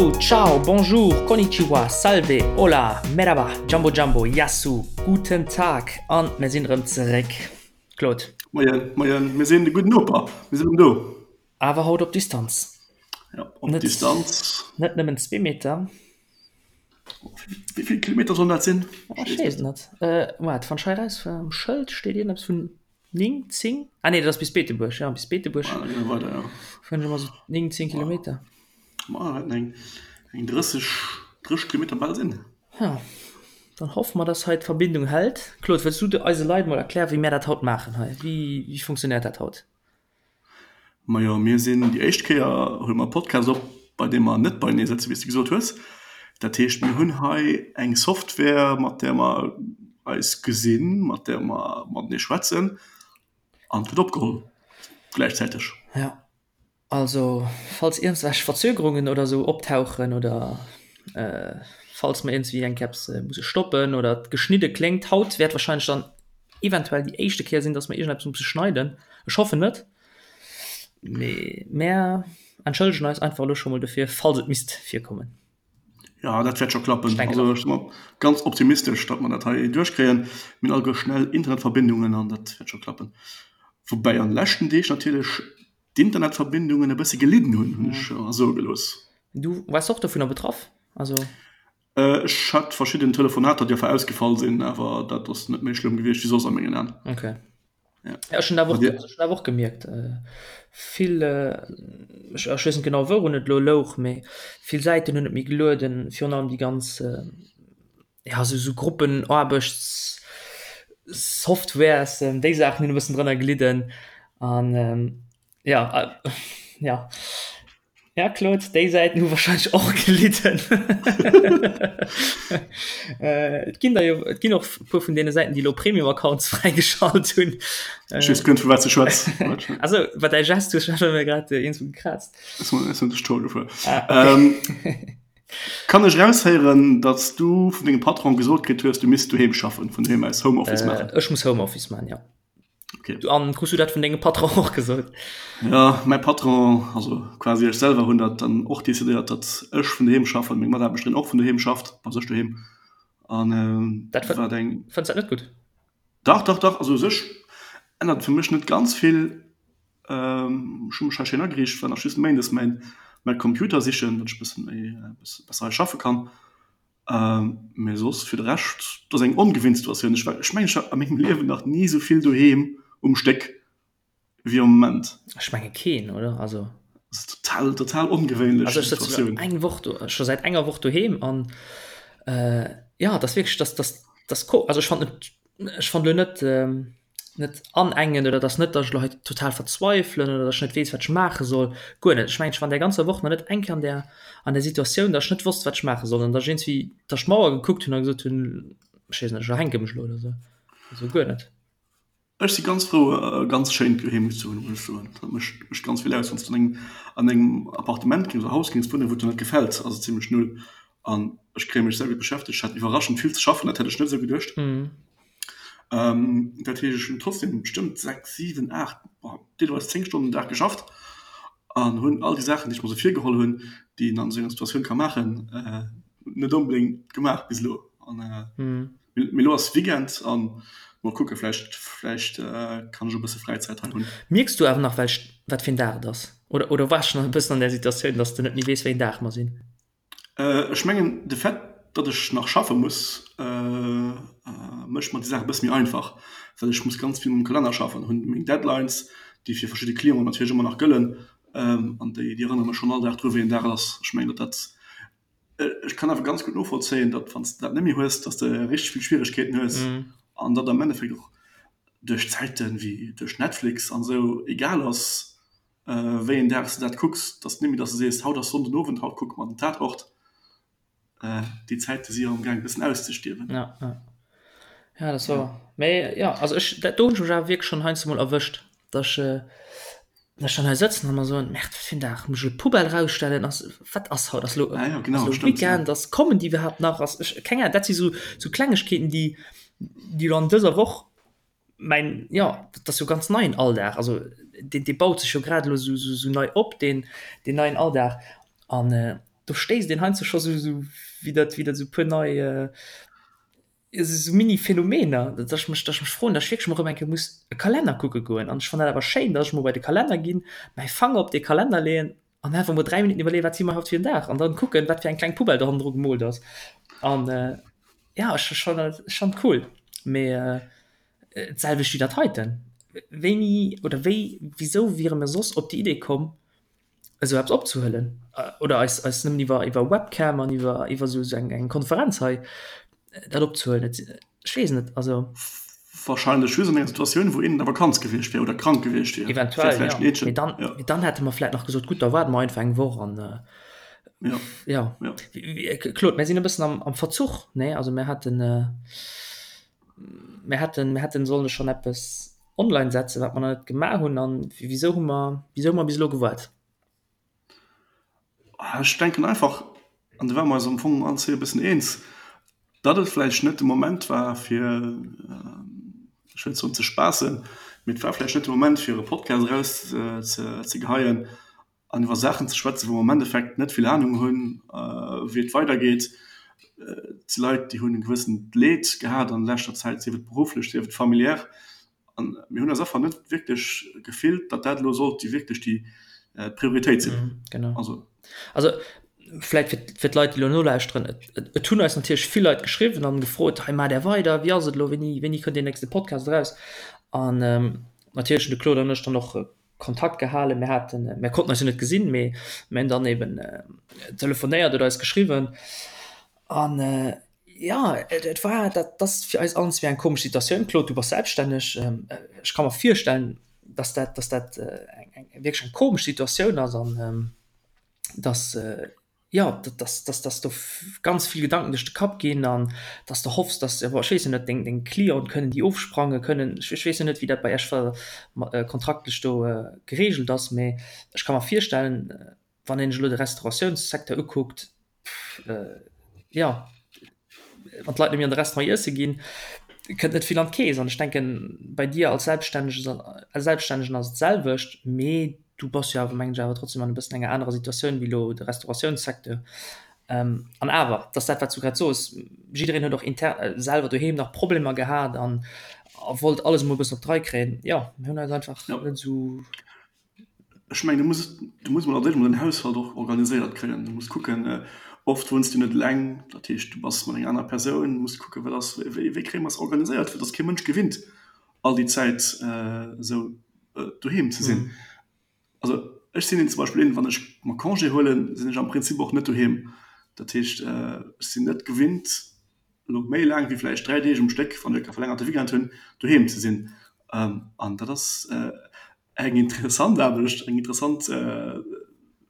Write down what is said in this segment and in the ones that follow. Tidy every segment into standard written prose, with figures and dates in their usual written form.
Hallo, ciao, bonjour, konnichiwa, salve, hola, merhaba, jambo jambo, yassou, guten Tag an mir sinn erëm zeréck. Claude. Moien, moien, mir sinn de gudden Noper, mir sinn erëm do. Awer haut op Distanz. Ja, op net, Distanz. Net nëmmen zwee Meter. Wéi vill Kilometer sollen dat sinn? Ech weess et net. Waart, wann ech hei erausfueren, um Schëld steet iergendeppes vun 9, 10? Ah nee, dat ass bis Beetebuerg, ja, bis Beetebuerg. Ah, da gi mer weider, ja. Fueren ech ëmmer sou 9, 10 Kilometer. Ma dat wäerten eng, eng 30, 30 Kilometer bal sinn. Ja, dann hoffe mer, dass hei d'Verbindung hält. Claude, wëlls du eise Leit mol erklären, wéi mär dat haut maachen hei? Wéi, wéi funktionéiert dat haut? Majo, mir sinn déi éischt Kéier huele mer e Podcast op, bei deem mer net beienee sëtzen, wéi s de gesot hues. Dat heescht, mir hunn hei eng Software, mat där mer eis gesinn, mat där mer matenee schwätzen an et gëtt opgeholl gläichzäiteg. Jo, also falls iergendwelch Verzögerungen oder esou optauchen oder falls mer iergendwéi eng Kéier eppes musse stoppen oder et geschnidde kléngt, haut wäert warscheinlech dann eventuell déi éischte Kéier sinn, dass mer iergendeppes musse schneiden. Ech hoffen net, mee mär entschëllegen eis einfach elo scho mol dofir, falls et misst virkommen. Jo, dat wäert scho klappen. Also ech si mer ganz optimistesch, datt mer dat hei duerchkréien. Mir hunn alleguer schnell Internetverbindungen an dat wäert scho klappen. Woubäi an de leschten Deeg natierlech d'Internetverbindungen e bësse gelidden hunn, hunn ech mer soe gelooss. Du waars och dovunner betraff? Also. Ech hat verschidden Telefonater, déi einfach ausgefall sinn, awer dat ass net méi schlëmm gewiescht wéi soss a mengen Aen. Okay. Ja. Ja, ech hunn dat och, ech hunn dat och gemierkt. Vill, ech, ech weess net genau wourun et elo louch, mee vill Säiten hunn net méi gelueden, virun allem déi ganz, ja sou, sou Gruppenaarbechtssoftwares, déi Saachen hunn e bëssen drënner gelidden an ja, ja. Ja Claude, déi Säiten hu wahrscheinlech och gelidden. Et ginn der jo, et ginn och e puer vun deene Säiten, déi elo Premium-Accounts fräigeschalt hunn. Ech weess guer net, vu wat s de schwätz. Also, wat däi Gest hues ech mir grad iergendwou gekraazt. Ech hunn dech Tour gefuer. Ah, okay. Kann ech eraushéieren, datt s du vun dengem Patron gesot kritt hues, du misst doheem schaffen, vun doheem aus Homeoffice maachen? Ech muss Homeoffice maachen, jo. Okay. An krus du dat vun dengem Patron och gesot? Ja, mäi Patron, also quasi ech selwer hunn dat dann och decidéiert, datt ech vun doheem schaffen, meng Mataarbechterin och vun doheem schafft, bei sech doheem. An ähm, dat war eng. Fënns dat net gutt? Dach, dach, dach. Also u sech ännert et fir mech net ganz vill. Ähm, ech hu mech hei schéin ageriicht, war nach just méindes mäin, mäi Computer sichen, datt ech e bësse méi, e bësse besser hei schaffe kann. Mee soss fir de Rescht, et ass eng ongewinnt Situatioun. Ech war, ech mengen, ech war a mengem Liewen nach ni esou vill doheem um Stéck wéi am Moment. Ech menge keen, oder? Also. Dat ass total, total ongewéinlech Also ech sëtze Situatioun. eng Woch do, scho säit enger Woch doheem an jo, et ass wierklech, dass, dass, dass ko, also ech fannen et, ech fannen elo net, net anengen oder dass net, dass ech elo hei total verzweifelen oder dass ech net weess, wat ech maache soll, guer net. Ech mengen, ech war an där ganzer Woch nach net eng Kéier an där, an där Situatioun, dass ech net wosst, wat ech maache soll an dass ech iergendwéi dass ech d'Mauer gekuckt hunn a gesot hunn, ech weess net, ech erhänke mech elo oder esou. Also guer net. Ech si ganz frou, e ganz schéint Doheem ze hunn, muss ech soen. Dat mécht, mécht ganz vill aus. Wann s du an engem, an engem Appartement géings oder Haus géings wunnen, wou et der net gefält, ass et zimlech null. An ech kréie mech sehr gutt beschäftegt. Ech hat iwwerraschend vill ze schaffen, dat hätt ech net esou geduecht. Dat heescht, ech hunn trotzdem bestëmmt 6, 7, 8, deelweis 10 Stonnen den Dag geschafft an hunn all déi Saachen, déi ech mer esou virgeholl hunn, déi een an esou enger Situatioun ka maachen, net onbedéngt gemaach bis elo. An mee elo ass Weekend an mol kucke vläicht, vläicht kann ech e bësse Fräizäit hei hunn. Mierks du awer nach welch, wat fir en Dag et ass? Oder, oder waars schonn e bëssen an där Situatioun, dass de net méi weess, wéi en Dag mer sinn? Ech mengen de Fait, datt ech nach schaffe muss, mécht mer déi Saach e bësse méi einfach, well ech muss ganz vill mam Kalenner schaffen, hunn meng Deadlines, déi fir verschidde Clienten natierlech ëmmer nach gëllen, an déi erënnere mech schonn all Dag dru wéi en Dag et ass. Ech mengen, datt dat, ech kann awer ganz gutt novollzéien, datt wann s de dat net méi hues, datt s de richteg vill Schwieregkeeten hues an datt am Endeffekt och duerch Zäiten wéi duerch Netflix an esou egal ass, Wéi een Dag s de dat kucks, dass net méi, dass de sees, haut ass Sonnden Owend, haut kucke mer den Tatort. Déi Zäite si jo am gaang e bëssen auszestierwen. Ja, ja. Ja, dat ass wouer. Mee jo, also ech, dat do hunn ech mech awer wierklech schonn heiansdo mol erwëscht, dass ech, dass ech dann hei sëtzen a mer soen, Merde, wat fir en Dag, muss ech elo d'Poubelle erausstellen, ass, wat ass haut, ass elo, Ah jo, genau, ass elo stimmt, ja. Weekend, ass, kommen déi iwwerhaapt nach, ass, ech, keng Ahnung, dat si sou, sou Klengegkeeten, déi, déi elo an dëser Woch Mäin, jo, dat ass jo ganz neien Alldag. Also deen, dee baut sech jo grad elo esou, esou nei op, deen, deen neien Alldag. An. Do stéisst een heiansdo scho sou, sou wéi dat, wéi dat sou puer nei, esou Mini-Phänomener, datt ech mech, datt ech mech froen, datt ech wierklech mol erëm eng Kéier muss e Kalenner kucke goen. An ech fannen dat awer schéin, datt ech mol bei de Kalenner ginn, mäi Fanger op dee Kalenner leeën an einfach mol 3 Minutten iwwerleeën, wat si mer haut fir en Dag an dann kucken, wat fir eng kleng Poubelle do hannendru gemoolt ass. An jo, ech fannen dat schonn cool. Mee d'selwecht wéi dat heiten. Wéini oder wéi, wisou wiere mir soss op déi Idee komm, esou eppes opzehuelen oder eis eis nëmmen iwwer iwwer Webcam an iwwer iwwer esou eng eng Konferenz hei dat opzehuelen. Et ech weess net, also. Wahrscheinlech just an enger Situatioun, wou een an der Vakanz gewiescht wär oder krank gewiescht wier. Eventuell, jo. Mee dann, mee dann hätte mer vläit nach gesot, gutt, da waarde mer einfach eng Woch an jo. Jo. Claude, mir sinn e bëssen am am Verzuch, nee? Also mir haten, mir hätten, mir hätten solle schonn eppes online setzen, wat mer nach net gemaach hunn. An wisou hu mer, wisou hu mer bis elo gewaart? Ech denken einfach, an do ware mer eis am Fong allen zwee e bëssen eens, datt et vläicht net de Moment war fir, ech wëll net soen ze spaassen, mee et war vläicht net de Moment fir e Podcast eraus ze geheien an iwwer Saachen ze schwätzen, wou mer am Endeffekt net vill Anung hunn, wéi et weidergeet. Et si Leit, déi hunn e gewëssent Leed gehat an leschter Zäit, sief et berufflech, sief et familiär. An mir hunn eis einfach net wierklech gefillt, datt dat elo sollt déi wierklech déi Prioritéit sinn. Genau. Also, also vläit fir, fir d'Leit, déi elo nolauschteren, et, et, et hunn eis natierlech vill Leit geschriwwen an gefrot, hei maacht Är weider, wéi ass et elo, wéini, wéini kënnt deen nächste Podcast eraus? An natierlech hunn de Claude an ech dann och Kontakt gehalen. Mir haten, mir konnten eis jo net gesinn, mee mir hunn dann eben telefonéiert oder eis geschriwwen. An jo, et war, dat ass fir eis allen zwee eng komesch Situatioun. Claude, du bass selbststänneg. Ech ka mer virstellen, dass dat, dass dat eng, eng wierklech eng komesch Situatioun ass an dass, jo, dass, dass, dass do ganz vill Gedanken duerch de Kapp ginn an dass de hoffs, dass, bon, ech weess jo net, deng, deng Clienten, kënnen déi ofsprangen, kënnen, ech, ech weess jo net, wéi dat bei Iech ver, kontraktlech do geregelt ass, mee ech ka mer virstellen, wann een sech elo de Restauratiounssecteur ukuckt, jo, wann d'Leit net méi an de Restaurant iesse ginn, kënnt net vill an d'Keess. An ech denken, bei dir als Selbststännegen, als Selbststännegen ass et d'selwecht, mee du bass jo awer, mengen ech, awer trotzdem an e bëssen enger anerer Situatioun wéi elo de Restauratiounssecteur. An awer, et ass dat, wat s du grad soos, jiddereen huet och inter selwer doheem nach Problemer gehat an a wollt alles emol e bëssen op d'Rei kréien. Jo, mir hunn eis einfach net esou. Ech mengen, du muss, du muss mol als éischt mol den Haushalt och organiséiert kréien. Du muss kucken, oft wunns du net eleng, dat heescht, du bass mat enger anerer Persoun, muss kucken, wat ass, wéi, wéi kréie mer es organiséiert, fir dass kee Mënsch gewinnt, all déi Zäit esou doheem ze sinn. Also ech sinn een zum Beispill een, wann ech mer Congé huelen, sinn ech am Prinzip och net doheem. Dat heescht, ech sinn net gewinnt, elo méi laang wéi vläicht 3 Deeg um Stéck, wann ech e verlängerte Weekend hunn, doheem ze sinn. An dat ass Eng interessant Aarbecht, eng interessant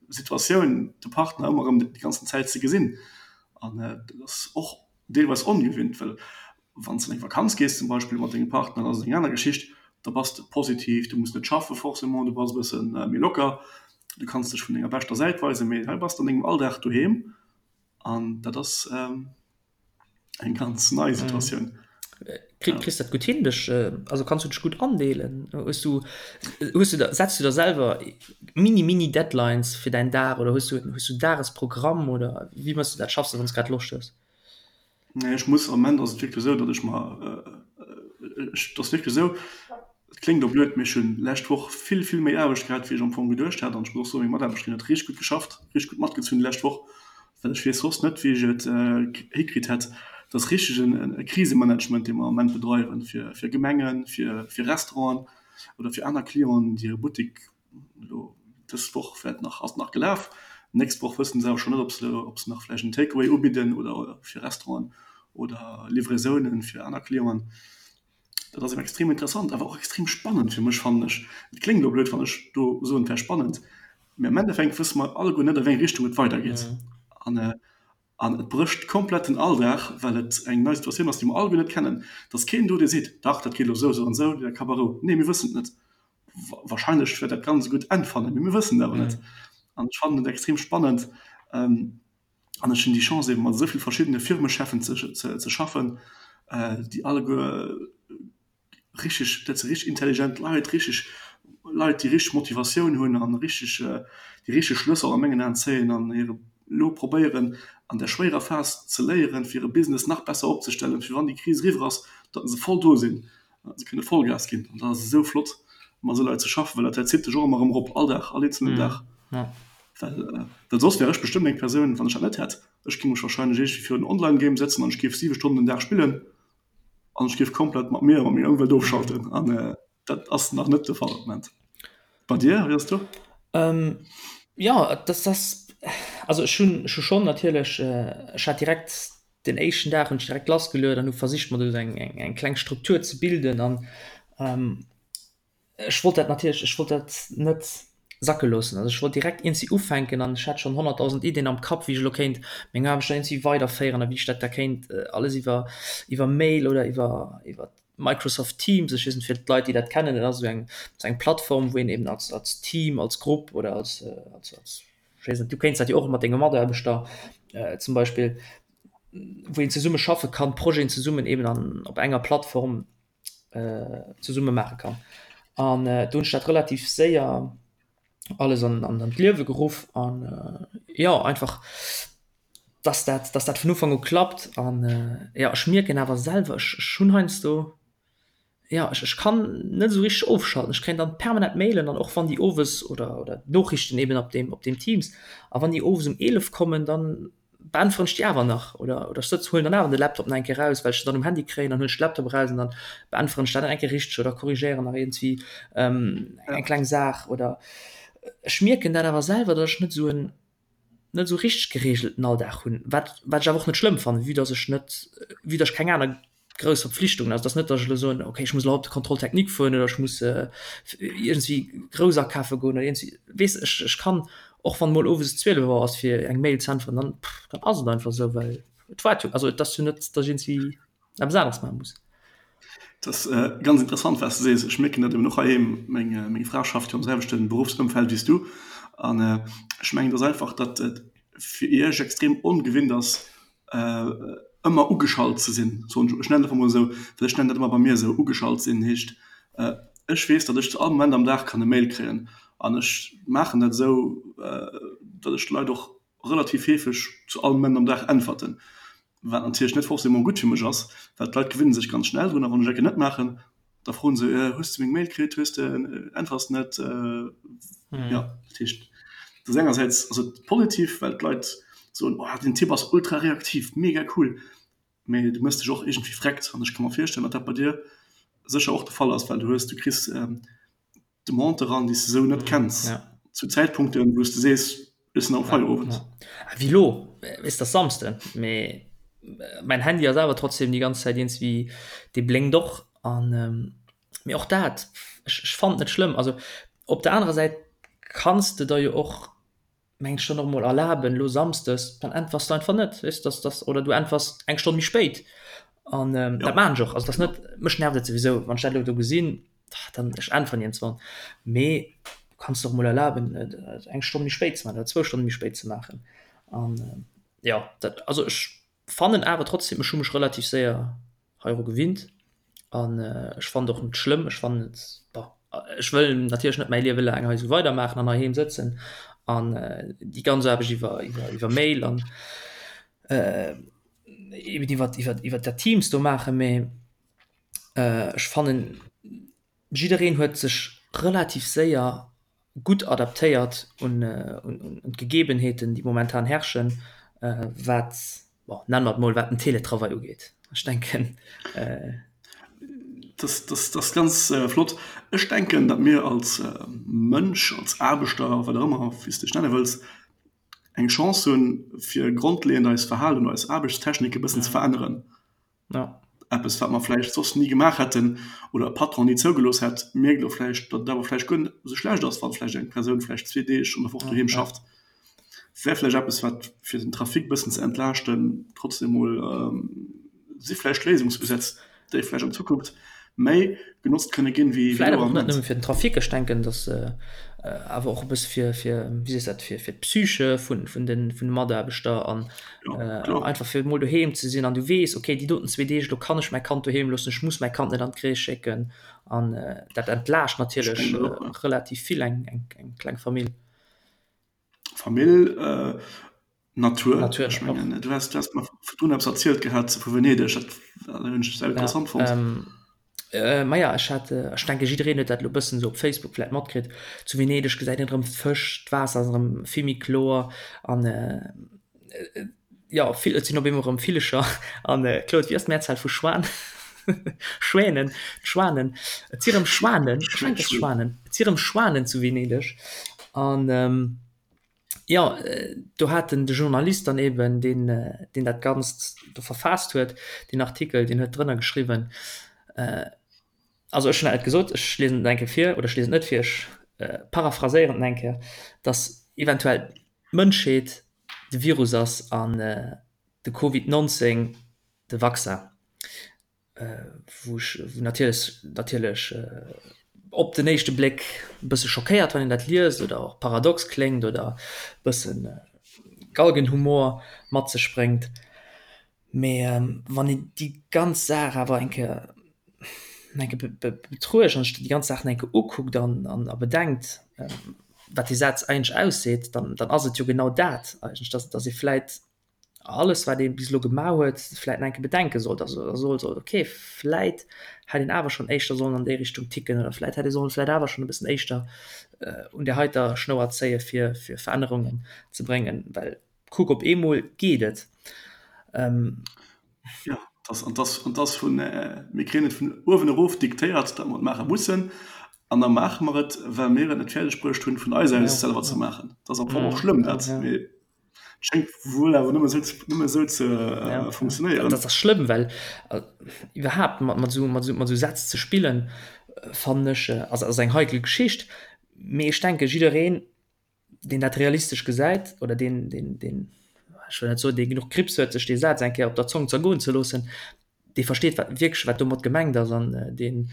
Situatioun, de Partner ëmmer erëm déi ganzen Zäit ze gesinn. An dat ass och deelweis ongewinnt, well wann s de an eng Vakanz gees zum Beispill mat dengem Partner, dann ass et eng aner Geschicht. Da bass de positiv, du muss net schaffe forcément, du bass e bësse méi locker, du kanns dech vun denger beschter Säit weisen. Mee hei bass de an dengem Alldag doheem an dat ass. Eng ganz nei Situatioun. Kritt, kriss dat gutt hin, dech, also kanns du dech gutt andeelen? Hues du, hues du der, setz du der selwer mini, mini Deadlines fir däin Dag oder hues du, hues du en Dagesprogramm oder wéi méchs du dat? Schaffs de, wann s grad Loscht hues? Nee, ech muss, am Moment ass et wierklech esou, datt ech mer, ech, et ass wierklech esou, et kléngt elo blöd, mee ech hunn d'lescht Woch vill, vill méi Aarbecht gehat, wéi ech am Fong geduecht hat. An ech muss och soen, meng Mataarbechterin huet richteg gutt geschafft, richteg gutt matgezunn déi lescht Woch. Well ech weess soss net, wéi ech et hikritt hätt. Et ass richteg e Krisemanagement, dee mer am Moment bedreiwen, fir Gemengen, fir Restauranten oder fir aner Clienten, déi hire Buttek elo dës Woch wäert nach, ass nach gelaf, d'nächst Woch wësse se awer schonn net, ob se, ob se nach vläicht en Take-away ubidden oder fir Restauranten oder Livraisounen fir aner Clienten. Dat ass extrem interessant, awer och extrem spannend fir mech, fannen ech. Et kléngt elo blöd, wann ech do soen, et wär spannend, mee am Endeffekt wësse mer alleguer net, a wéi eng Richtung et weidergeet. An, an et brécht komplett den Alldag, well et eng nei Situatioun ass, déi mer alleguer net kennen. Et ass keen do, dee seet, Dach, dat geet elo esou, esou an esou, der Kapp a Rou. Nee, mir wëssen et net. Wahrscheinlech wäert dat Ganzt e gutt Enn fannen, mee mir wëssen et awer net. An ech fannen et extrem spannend. An ech hunn déi Chance eben mat esou vill verschiddene Firmecheffen ze ze schaffen, déi alleguer richteg, dat si richteg intelligent Leit, richteg Leit déi richteg Motivatioun hunn an richteg déi richteg Schlësser a mengen Aen zéien an hire. elo probéieren an der schwéierer Phas ze léieren, fir e Business nach besser opzestellen, fir wann déi Kris eriwwer ass, datt se voll do sinn, datt se kënne Vollgas ginn. An dat ass esou flott, mat esou Leit ze schaffen, well dat zitt dech och ëmmer erëm erop, all Dag, all eenzelnen Dag. Well, well soss wär ech bestëmmt eng Persoun, wann ech dat net hätt, ech géing mech wahrscheinlech iergendwéi virun en Online-Game sëtzen an ech géif siwe Stonnen den Dag spillen an ech géif komplett mat mir a mat menger Ëmwelt ofschalten. An dat ass nach net de Fall am Moment. Bei dir, wéi ass do? Ähm, jo, dat ass, also ech hunn, ech hu schonn natierlech, ech hat direkt den éischten Dag hunn ech direkt lassgeluet an hu versicht mer do eng, eng, eng kleng Struktur ze bilden an ech wollt dat natierlech, ech wollt dat net sacke loossen. Also ech wollt direkt iergendwéi ufänken an ech hat schonn 100.000 Iddien am Kapp, wéi ech elo kéint meng Aarbecht da iergendwéi weiderféieren a wéi ech dat da kéint alles iwwer, iwwer Mail oder iwwer, iwwer Microsoft Teams, ech weess net fir d'Leit déi dat kennen, dat ass esou eng esou eng Plattform wou een eben als als Team, als Grupp oder als als als ech weess net, du kéints dat jo och mat denge Mataarbechter zum Beispill, wou een zesumme schaffe kann, Projeten zesummen eben an op enger Plattform zesumme maache kann. An do hunn ech dat relativ séier alles an an an d'Liewe geruff an jo einfach dass dat dass dat vun Ufank u klappt an jo ech mierken awer selwer ech ech hunn heiansdo jo ech ech kann net esou richteg ofschalten. Ech kréien dann permanent Mailen an och wann déi owes oder oder Noriichten eben op deem op deem Teams a wann déi owes um 11 kommen, dann beäntweren ech déi awer nach oder oder ech sëtz huelen dann awer de Laptop nach eng Kéier raus, well ech se dann um Handy kréien, dann huelen ech de Laptop eraus an dann beäntweren ech dat nach eng Kéier richteg oder korrigéieren nach iergendwéi eng kleng Saach oder ech mierken dat awer selwer, datt ech net esou en net esou richteg geregelten Alldag hunn, wat wat ech awer och net schlëmm fannen, vue dass ech net, vue dass ech keng aner grouss Verpflichtungen, also et ass net, dass ech elo soen, okay ech muss elo haut op de Contrôle technique fueren oder ech muss iergendwéi grouss akafe goen oder iergendwéi, weess ech, ech kann och wann emol owes 12 Auer ass fir eng Mail ze äntweren, dann dann ass et einfach esou, well et waart jo, also et ass jo net, dass ech iergendwéi eppes aneres maache muss. Et ass ganz interessant, wat s de sees. Ech mierken dat eben och heiheem. Meng, meng Fra schafft jo am selwechte Beruffsëmfeld wéi s du. An ech mengen, et ass einfach, datt et fir iech extrem ongewinnt ass, ëmmer ugeschalt ze sinn, soen ech. Ech nennen et einfach mol esou, well ech nennen dat ëmmer bei mir esou, ugeschalt sinn heescht, ech weess, datt ech zu all Moment am Dag kann e Mail kréien. An ech maachen dat esou, datt ech d'Leit och relativ heefeg zu all Moment am Dag äntwerten. Wat natierlech net forcément gutt fir mech ass, well d'Leit gewinne sech ganz schnell drun a wann ech ecke net maachen, da froen se, hues de meng Mail kritt, hues de, äntwers net? Jo, dat heescht, dat ass engersäits ass et positiv, well d'Leit soen, oh den Typ ass ultra reaktiv, mega cool, mee du méchs dech och iergendwéi vreckt an ech ka mer virstellen, datt dat bei dir sécher och de Fall ass, well du hues, du kriss Demande eran, déi s de esou net kenns, ja. Zu Zäitpunkten, wou s de sees, ech sinn am Feierowend. Ja. Ah, wéi lo, weess, dat ass Samsden, mee mäin Handy ass awer trotzdem déi ganz Zäit iergendwéi, dee blénkt och an, mee och dat, ech, ech fannen et net schlëmm. Also op der anerer Säit kanns de der jo och meng ech dann och mol erlaben lo samsdes, dann äntwers de einfach net, weess dass dass oder du äntwers eng Stonn méi spéit an ähm, ja. dat maan ech och, also dass net, mech nervt et souwisou wann ech dat lo do gesinn, dann ech äntweren iergendswann, mee du kanns der och mol erlaben et eng Stonn méi spéit ze maachen oder zwou Stonne méi spéit ze maachen an ähm, ja dat also ech fannen awer trotzdem ech hu mech relativ séier heiru gewinnt an ech fannen et och net schlëmm. Ech fannen et, bon, ech wëll natierlech net mäi Liewe laang hei esou weidermaachen an heiheem sëtzen an déi ganz Aarbecht iwwer iwwer iwwer Mail an eben iwwer iwwer iwwer dat Teams do maachen, mee ech fannen jiddereen huet sech relativ séier gutt adaptéiert un d'Gegebenheeten, déi momentan herrschen, wat, bon, nenne mer et mol, wat den Teletravail ugeet. Ech denken. Dat ass ganz flott. Ech denken, datt mir als Mënsch, als Aarbechter, wat och ëmmer, wéi s de dech nenne wëlls, eng Chance hunn, fir grondleeënd eist Verhalen, eis Aarbechtstechnik e bëssen ze veränneren. Ja. Eppes, wat mer vläicht soss ni gemaach hätten oder e Patron ni zougelooss hätt, mierkt elo vläicht, datt et awer vläicht guer net esou schlecht ass, wann vläicht eng Persoun vläicht zwee Deeg an der Woch doheem schafft. Wär vläicht eppes, wat fir den Trafic e bëssen ze entlaaschten, trotzdem emol si vläicht Léisungsusätz, déi vläicht an Zukunft méi genotzt kënne ginn, wéi Vläit awer och net nëmme fir den Trafic. Ech denken, datt awer och e bësse fir, fir, wéi sees dat, fir, fir d'Psyche vun, vun de, vun de Mataarbechter an einfach fir emol doheem ze sinn an du weess, okay, déi doten zwee Deeg, do kann ech mäi Kand doheem loossen, ech muss mäi Kand net an d'Crèche schécken an dat entlaascht natierlech relativ vill eng, eng, eng kleng Famill. Famill. Natur. Natur Ech mengen, du has, du has mer virdrun eppes erzielt gehat vu Venedeg, dat hunn ech sehr interessant fonnt. Ja, ähm, maja, ech hat, ech denke jiddereen huet dat elo bëssen esou op Facebook vläit matkritt, zu Venedeg gesäit een erëm d'Fësch, d'Waasser ass erëm vill méi kloer an jo, vill, et sinn op eemol erëm Villecher an Claude, wéi ass d'Mehrzahl vu Schwan? Schwänen, d'Schwanen, et si erëm Schwanen, ech mengen et ass Schwanen, et si erëm Schwanen zu Venedeg an Jo, do hat den de Journalist dann eben, deen, deen dat Ganzt do verfaasst huet, deen Artikel, deen huet drënner geschriwwen, also ech hunn dat net gesot, ech liesen et eng Kéier vir, oder ech liesen et net vir, ech paraphraséieren et eng Kéier, datt eventuell d'Mënschheet de Virus ass an de Covid 19 de Vaccin. wou ech wou natierlech natierlech op den éischte Bléck e bësse schockéiert wann een dat liest oder och paradox kléngt oder e bëssen Galgenhumor mat sech bréngt. Mee wann een déi ganz Saach awer eng Kéier eng Kéier betruecht an sech déi ganz Saach eng Kéier ukuckt an an a bedenkt, wat dee Saz eigentlech ausseet, dann dann ass et jo genau dat eigentlech, dass dass ee vläit alles wat ee bis elo gemaach huet, vläit nach eng Kéier bedenke sollt, also soe sollt, okay, vläit hätt een awer schonn éischter sollen an déi Richtung ticken oder vläit hätt ee sollen vläit awer schonn e bëssen éischter un där heiter Schnouer zéie fir fir Verännerungen ze bréngen, well kuck op eemol geet et. Jo, dass, an dass, an dass vun, mir kréien et vun uewen erof diktéiert, datt mer et maache mussen, an da maache mer et, well mir et net fäerdeg bruecht hunn, vun eis aus selwer ze maachen. Dat ass am Fong och schlëmm, dat, mee Schéngt wuel awer nëmme sou, nëmme sou ze ja, funktionéieren. Dat ass schlëmm, well äh, iwwerhaapt mat, mat, sou, mat, sou, mat sou Sätz ze spillen, äh, fannen ech, äh, ass, ass eng heikel Geschicht. Mee ech denke jiddereen, deen dat realistesch gesäit oder deen, deen, deen, ech wëll net soen, dee genuch Kriibs huet, sech dee Saz eng Kéier op der Zong zergoen ze loossen, dee versteet wat wierklech wat domat gemengt ass an deen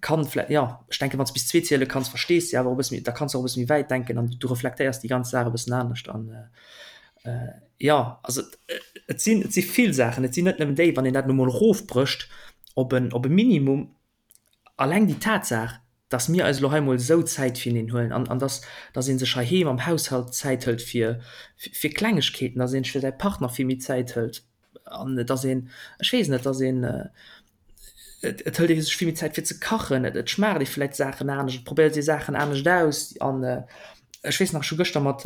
kann vläicht, jo ech denken wann s bis zwee ziele kanns verstees de awer och e bësse méi, da kanns de och e bësse méi wäit denken an du reflektéiers déi ganz Saach e bëssen anescht an jo also et sinn et si vill Saachen, et sinn net nëmmen déi, wann een dat elo mol erofbrécht op en op e Minimum, alleng déi Tatsaach, dass mir eis elo hei mol esou Zäit fireneen huelen an an dass dass ee sech heiheem am Haushalt Zäit hëlt fir fir Klengegkeeten, dass ee sech fir säi Partner vill méi Zäit hëlt. An et ass een, ech weess net, et ass een, et et hëlt ee sech vill méi Zäit fir ze kachen, et et schmaacht ee vläicht Saachen anescht, et probéiert ee Saachen anescht aus. An ech weess nach, ech hu gëschter mat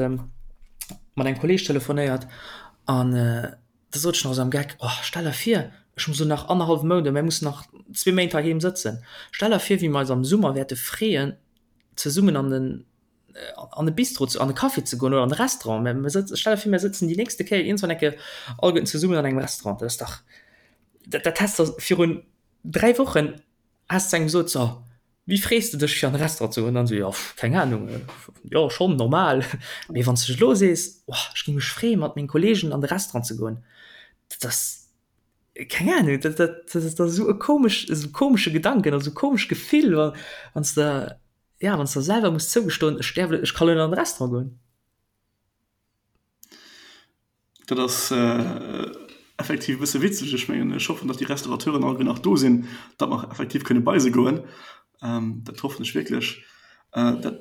mat engem Kolleeg telefonéiert an da sot ech nach esou am Geck, Oh, stell der vir, ech muss elo nach annerhallwe Mount oder mir mussen nach zwee Méint heiheem sëtzen. Stell der vir, wéi mer eis am Summer wäerte freeën, zesummen an den an e Bistro ze, an e Café ze goen oder an e Restaurant. Mä mir sëtzen, stell der vir, mir sëtzen déi nächste Kéier iergendwann eng Kéier alleguerten zesummen an engem Restaurant. Dat ass dach, dat, dat häss de virun 3 Wochen häss de engem gesot, so, wéi frees de dech fir an e Restaurant ze goen? An dann esou, jo, keng Anung, jo, schonn normal. Mee wann s de elo sees, oh, ech géing mech freeën, mat menge Kolleegen an de Restaurant ze goen, dat ass, keng Ahnung, dat, dat, dat ass esou e komesch, esou e komesche Gedanken, esou e komescht Gefill, wa wann s de, Ja, wann s de selwer muss zougestoen, ech däerf, ech ka lo net an de Restaurant goen. Dat ass effektiv e bësse witzeg. Ech mengen, ech hoffen, datt déi Restaurateuren alleguer nach do sinn, datt mer effektiv kënne bei se goen. Dat hoffen ech wierklech. Dat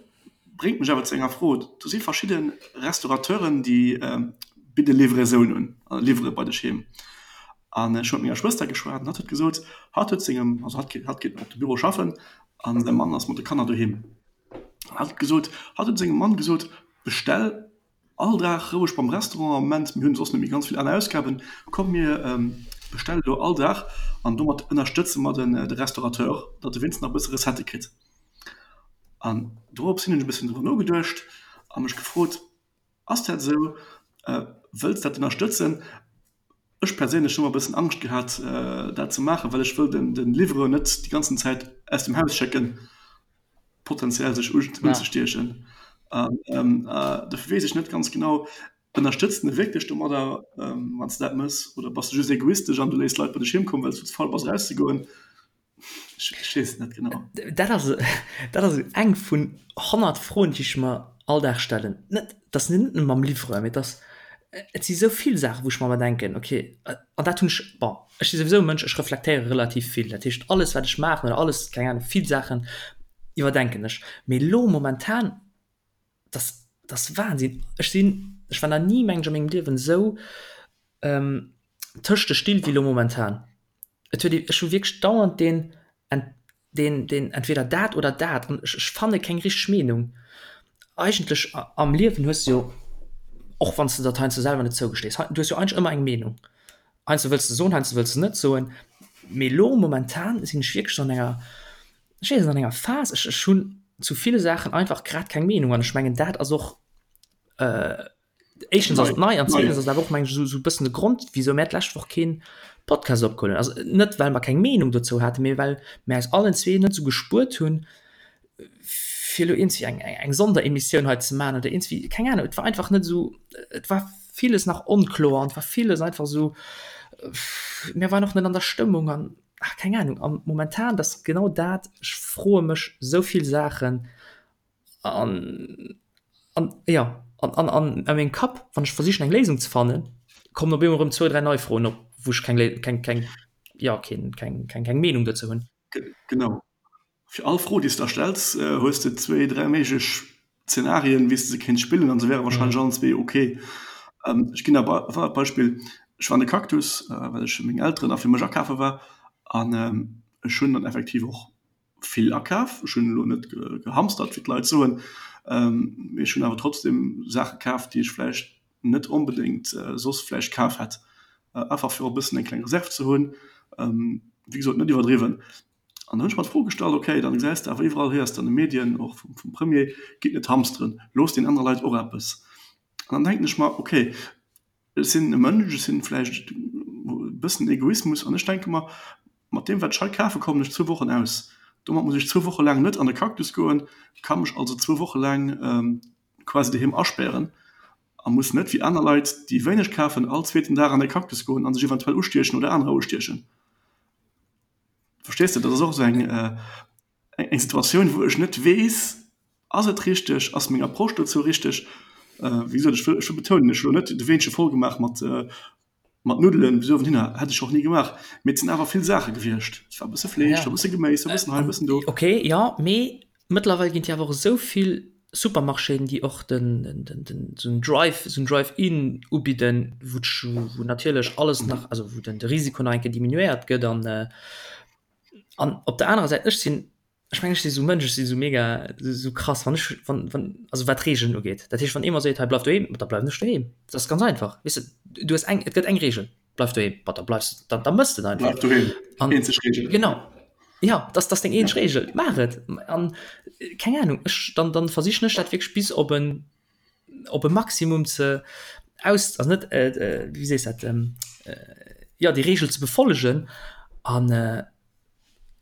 bréngt mech awer zu enger Fro, Do si verschidde Restaurateuren, déi bidde Livraison un, liwwere bei dech heem. An ech hu mat menger Schwëster geschwat an hatt huet gesot, hatt huet sengem, also hatt geet, hatt geet op de Büro schaffen an säi Mann ass mat de Kanner doheem. An hatt huet gesot, hatt huet sengem Mann gesot, bestell all Dag roueg beim Restaurant am Moment, mir hunn soss net méi ganz vill aner Ausgaben, komm mir bestelle lo all Dag an domat ënnerstëtze mer den de Restaurateur, datt e wéinstens nach e bësse Recettë kritt. An dorops hin hunn ech e bëssen driwwer nogeduecht a mech gefrot, Ass dat esou? Wëlls dat ënnerstëtzen? Ech perséinlech hu mer e bëssen Angscht gehat, dat ze maachen, well ech wëll den Livreur net déi ganzen Zäit aus dem Haus schécken, potenziell sech unzestiechen. An dofir weess ech net ganz genau, Ënnerstëtz de wierklech domadder, wann s de dat méchs, oder bass de just egoistesch an du léiss d'Leit bei dech heem kommen, well s du ze faul bass erauszegoen? Ech weess et net genau. Dat ass, dat ass eng vun 100 Froen, déi ech mer all Dag stellen. Net, dat ass net nëmme mam Livreur, mee et ass, et si sou vill Saachen, wou ech mer ëmmer denken, okay, an dat hunn ech, bon, ech si souwisou e Mënsch, ech reflektéiere relativ vill. Dat heescht, alles wat ech maachen oder alles, keng Ahnung, vill Saachen iwwerdenken ech. Mee elo momentan, dat ass, dat ass Wahnsinn. Ech sinn. Ech war nach ni, mengen ech, a mengem Liewen esou tëscht de Still wéi elo momentan. Et huet ee, ech hu wierklech dauernd deen, deen, deen entweder dat oder dat an ech, ech fanne keng richteg Meenung. Eigentlech am Liewen hues de jo, och wann s de dat heiansdo selwer net zougestees, du hues jo eigentlech ëmmer eng Meenung. Heiansdo wëlls de soen, heiansdo wëlls de net soen. Mee elo momentan sinn ech wierklech an enger, ech weess net, an enger Phas, ech, ech hunn zu ville Saachen einfach grad keng Meenung an ech mengen dat ass och, éischtens ass et nei an zweetens ass et awer och mengen ech esou e bëssen de Grond wisou mär d'lescht Woch keen Podcast opgeholl hunn. Also net well mer keng Meenung dozou haten, mee well mär eis allen zwee net esou gespuert hunn fir elo iergendwéi eng eng Sonderemissioun hei ze maachen oder iergendwéi, keng Ahnung, et war einfach net esou, et war villes nach onkloer an et war villes einfach esou, mir waren och net an der Stëmmung an ach keng Ahnung. An momentan, dat ass genau dat, ech froe mech esou vill Saachen An, an jo, an, an, an a mengem Kapp, wann ech versichen eng Léisung ze fannen, kommen op eemol erëm zwou, dräi nei Froen op, wou ech keng Lé keng, keng, jo, keen, keng, keng, keng Meenung dozou hunn. Genau. Fir all Fro, déi s de der stells, hues de zwéi, dräi méiglech Zenarien, wéi s de se kéints spillen, an se wäre warscheinlech allen zwee ok. Ech ginn der e Beispill, Ech war an de Cactus, well ech fir meng Elteren a fir mech akafe war, an ech hunn dann effektiv och vill akaf. Ech hunn elo net gehamstert, wéi d'Leit soen, mee ech hunn awer trotzdem Saache kaf, déi ech vläicht net onbedéngt soss vläicht kaf hätt, einfach fir och e bëssen eng kleng Reserv ze hunn. Wéi gesot, net iwwerdriwwen. An da hunn ech mer d'Fro gestallt, okay, dann gesäis de awer iwwerall, héiers de an de Medien, och vum Premier, gitt net hamsteren, loosst den anere Leit och eppes. An dann denken ech mer, okay, Ech sinn e Mënsch, ech sinn vläicht e bëssen Egoismus an ech denke mer, mat deem wat ech hei kafe kommen ech zwou Wochen aus. Domat muss ech zwou Woche laang net an de Cactus goen, ka mech also zwou Woche laang quasi doheem aspären a muss net wéi aner Leit, déi wéineg kafen, all zweeten Dag an de Cactus goen a sech eventuell ustiechen oder anerer ustiechen. Verstees de? Dat ass och esou eng eng Situatioun, wou ech net weess, Ass et richteg, ass meng Approche dozou richteg? Wéi gesot, ech wëll, ech wëll betounen, ech hu lo net de Weenche voll gemaach mat, mat Nuddelen bis uewen hinner, hätt ech och ni gemaach, mee et sinn awer vill Saache gewiescht. Et war e bësse Fleesch, et war e bësse Geméis, e bëssen hei, e bëssen do. Ok, jo, mee mëttlerweil ginn et jo awer och esou vill Supermarchéen, déi och den, den, den, esou en Drive, esou en Drive-in ubidden, wou wou natierlech alles nach, also wou den de Risiko nach eng Kéier diminuéiert gëtt an, an op der anerer Säit, ech sinn Ech mengen, ech si sou Mënsch, ech si sou mega sou krass, wann ech wann wann also wat Regeln ugeet. Dat heescht, wann ee mer seet, hei bleif doheem, da bleiwen ech doheem. Dat ass ganz einfach. Weess de, du hues eng, et gëtt eng Regel, bleif doheem, ma da bleifs de, da da mëss de et einfach. Bleif doheem, An eenzeg Regel. genau, ja, dat ass deng eenzeg Regel, maach et. An keng Ahnung, ech dann dann versichen ech dat wierklech bis op en op e Maximum ze aus also net wéi sees dat jo déi Regel ze befollegen an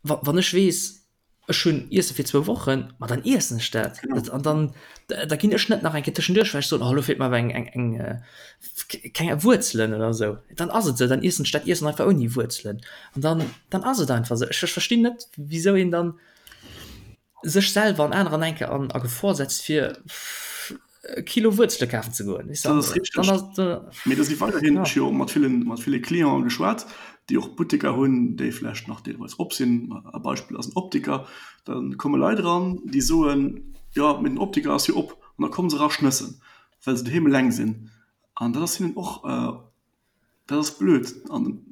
wann ech weess ech hunn Iesse fir zwou Wochen, ma dann iessen ech dat an dann da ginn ech net nach eng Kéier tëschenduerch well ech soen oh elo feelt mer awer eng eng eng keng Wuerzelen oder esou. Dann ass et esou, dann iessen ech dat Iessen einfach ouni Wuerzelen an dann dann ass et einfach esou. Ech verstinn net wisou een dann sech selwer an anerer enke an a Gefor setzt fir e Kilo Wuerzele kafen ze goen. Dat ass richteg. Mee do si weiderhin, ech hu jo och mat villen, mat ville Clienten geschwat, déi och Butteker hunn, déi vläicht nach deelweis op sinn. E Beispill ass en Optiker. Da komme Leit eran, déi soen, jo, mee den Optiker ass jo op. An da komme se era schnëssen, well se doheem eleng sinn. An dat ass hinnen och Dat ass blöd an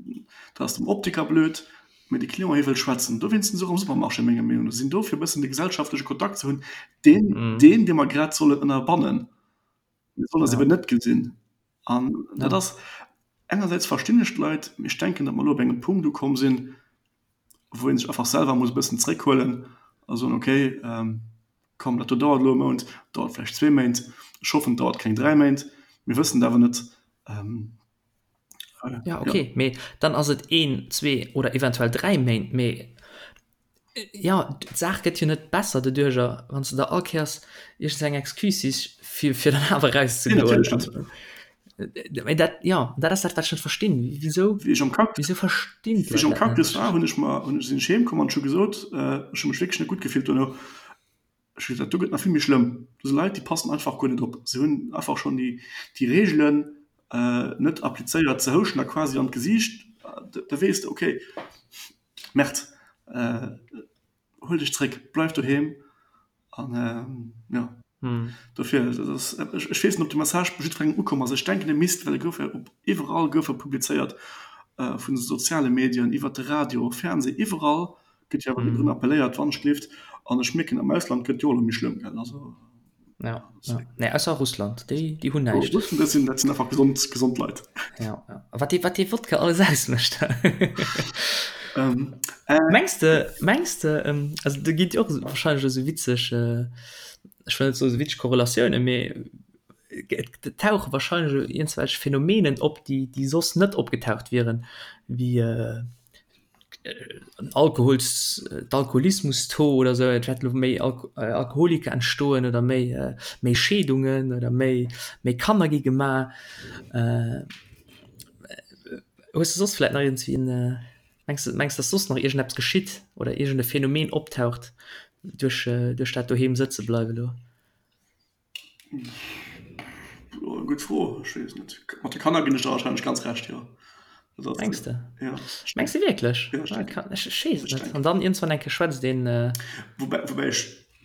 dat ass dem Optiker blöd, mee de Client hie wëll schwätzen. Dowéinst sinn se och am Supermarché menger Meenung no. Se sinn do fir e bëssen de gesellschaftleche Kontakt ze hunn, deen, deen dee mer grad sollen ënnerbannen. Mir sollen eis eben net gesinn. An dat ass, engersäits verstinn ech d'Leit, mee ech denken, datt mer elo op engem Punkt ukomm sinn, wou ee sech einfach selwer muss e bëssen zréckhuelen a soen, okay, komm dat do dauert elo e Mount, dauert vläicht zwee Méint, ech hoffen et dauert keng 3 Méint, mir wëssen et awer net. Ja okay, mee dann ass et een, zwee oder eventuell 3 Méint, mee jo d'Saach gëtt jo net besser doduercher, wann s de der all Kéiers iergends eng Excuse sichs fir fir dann awer erauszegoen. Mee dat jo dat ass dat wat ech net verstinn, wisou Wéi ech am Cactus, wisou verstinn wéi ech d'Leit am dat net? Cactus war, hunn ech mer, hunn ech, sinn ech heem komm an ech hu gesot, ech hu mech wierklech net gutt gefillt dono, Ech hu gesot, dat do gëtt nach vill méi schlëmm. Do si Leit, déi passen einfach guer net op. Se hunn einfach schonn déi, déi Reegelen net applizéiert. Se houschen der quasi an d'Gesiicht. Da weess de, okay, Merde, huel dech zréck, bleif doheem an jo. Dofir, dat ass, ech, ech weess net, ob de Message bei jiddwerengem ukomm ass. Ech denken, e misst, well e gouf jo op iwwerall gouf e publizéiert, vun de soziale Medien iwwert de Radio, Fernseh, iwwerall gëtt jo awer drun appelléiert, Wannschlift. An ech mierken, am Ausland gëtt jo elo méi schlëmm, gell, also. Ja, ja. Nee, ausser Russland, déi, déi hunn näischt. Russen, dat sinn, dat sinn einfach gesond, gesond Leit. Ja, ja. Wat dee, wat dee Wodka alles ausmécht. Mengs de, mengs de, also do ginn et jo och wahrscheinlech esou witzeg, ech wëll net soen esou witzeg Korrelatiounen, mee et tauche wahrscheinlech elo iergendwelch Phänomenen op, déi, déi soss net opgetaucht wieren, wéi en Alkohols-, d'Alkoholismus-Taux oder esou, et wäert elo méi Alkoholiker entstoen oder méi, méi Scheedungen oder méi, méi Kanner gi gemaach. Hues de soss vläicht nach iergendwéi en. Mengs de, mengs dass soss nach iergendeppes geschitt oder iergend e Phänomen optaucht duerch, duerch dat doheem sëtze bleiwe lo? Gutt Fro, ech weess net. Mat de Kanner ginn ech der wahrscheinlech ganz Recht, jo. Mengs de? Ja. Mengs de wierklech? Ja, ech denken. Ech, ech weess et net. An dann iergendswann eng Kéier schwätzt een. Woubäi, woubäi ech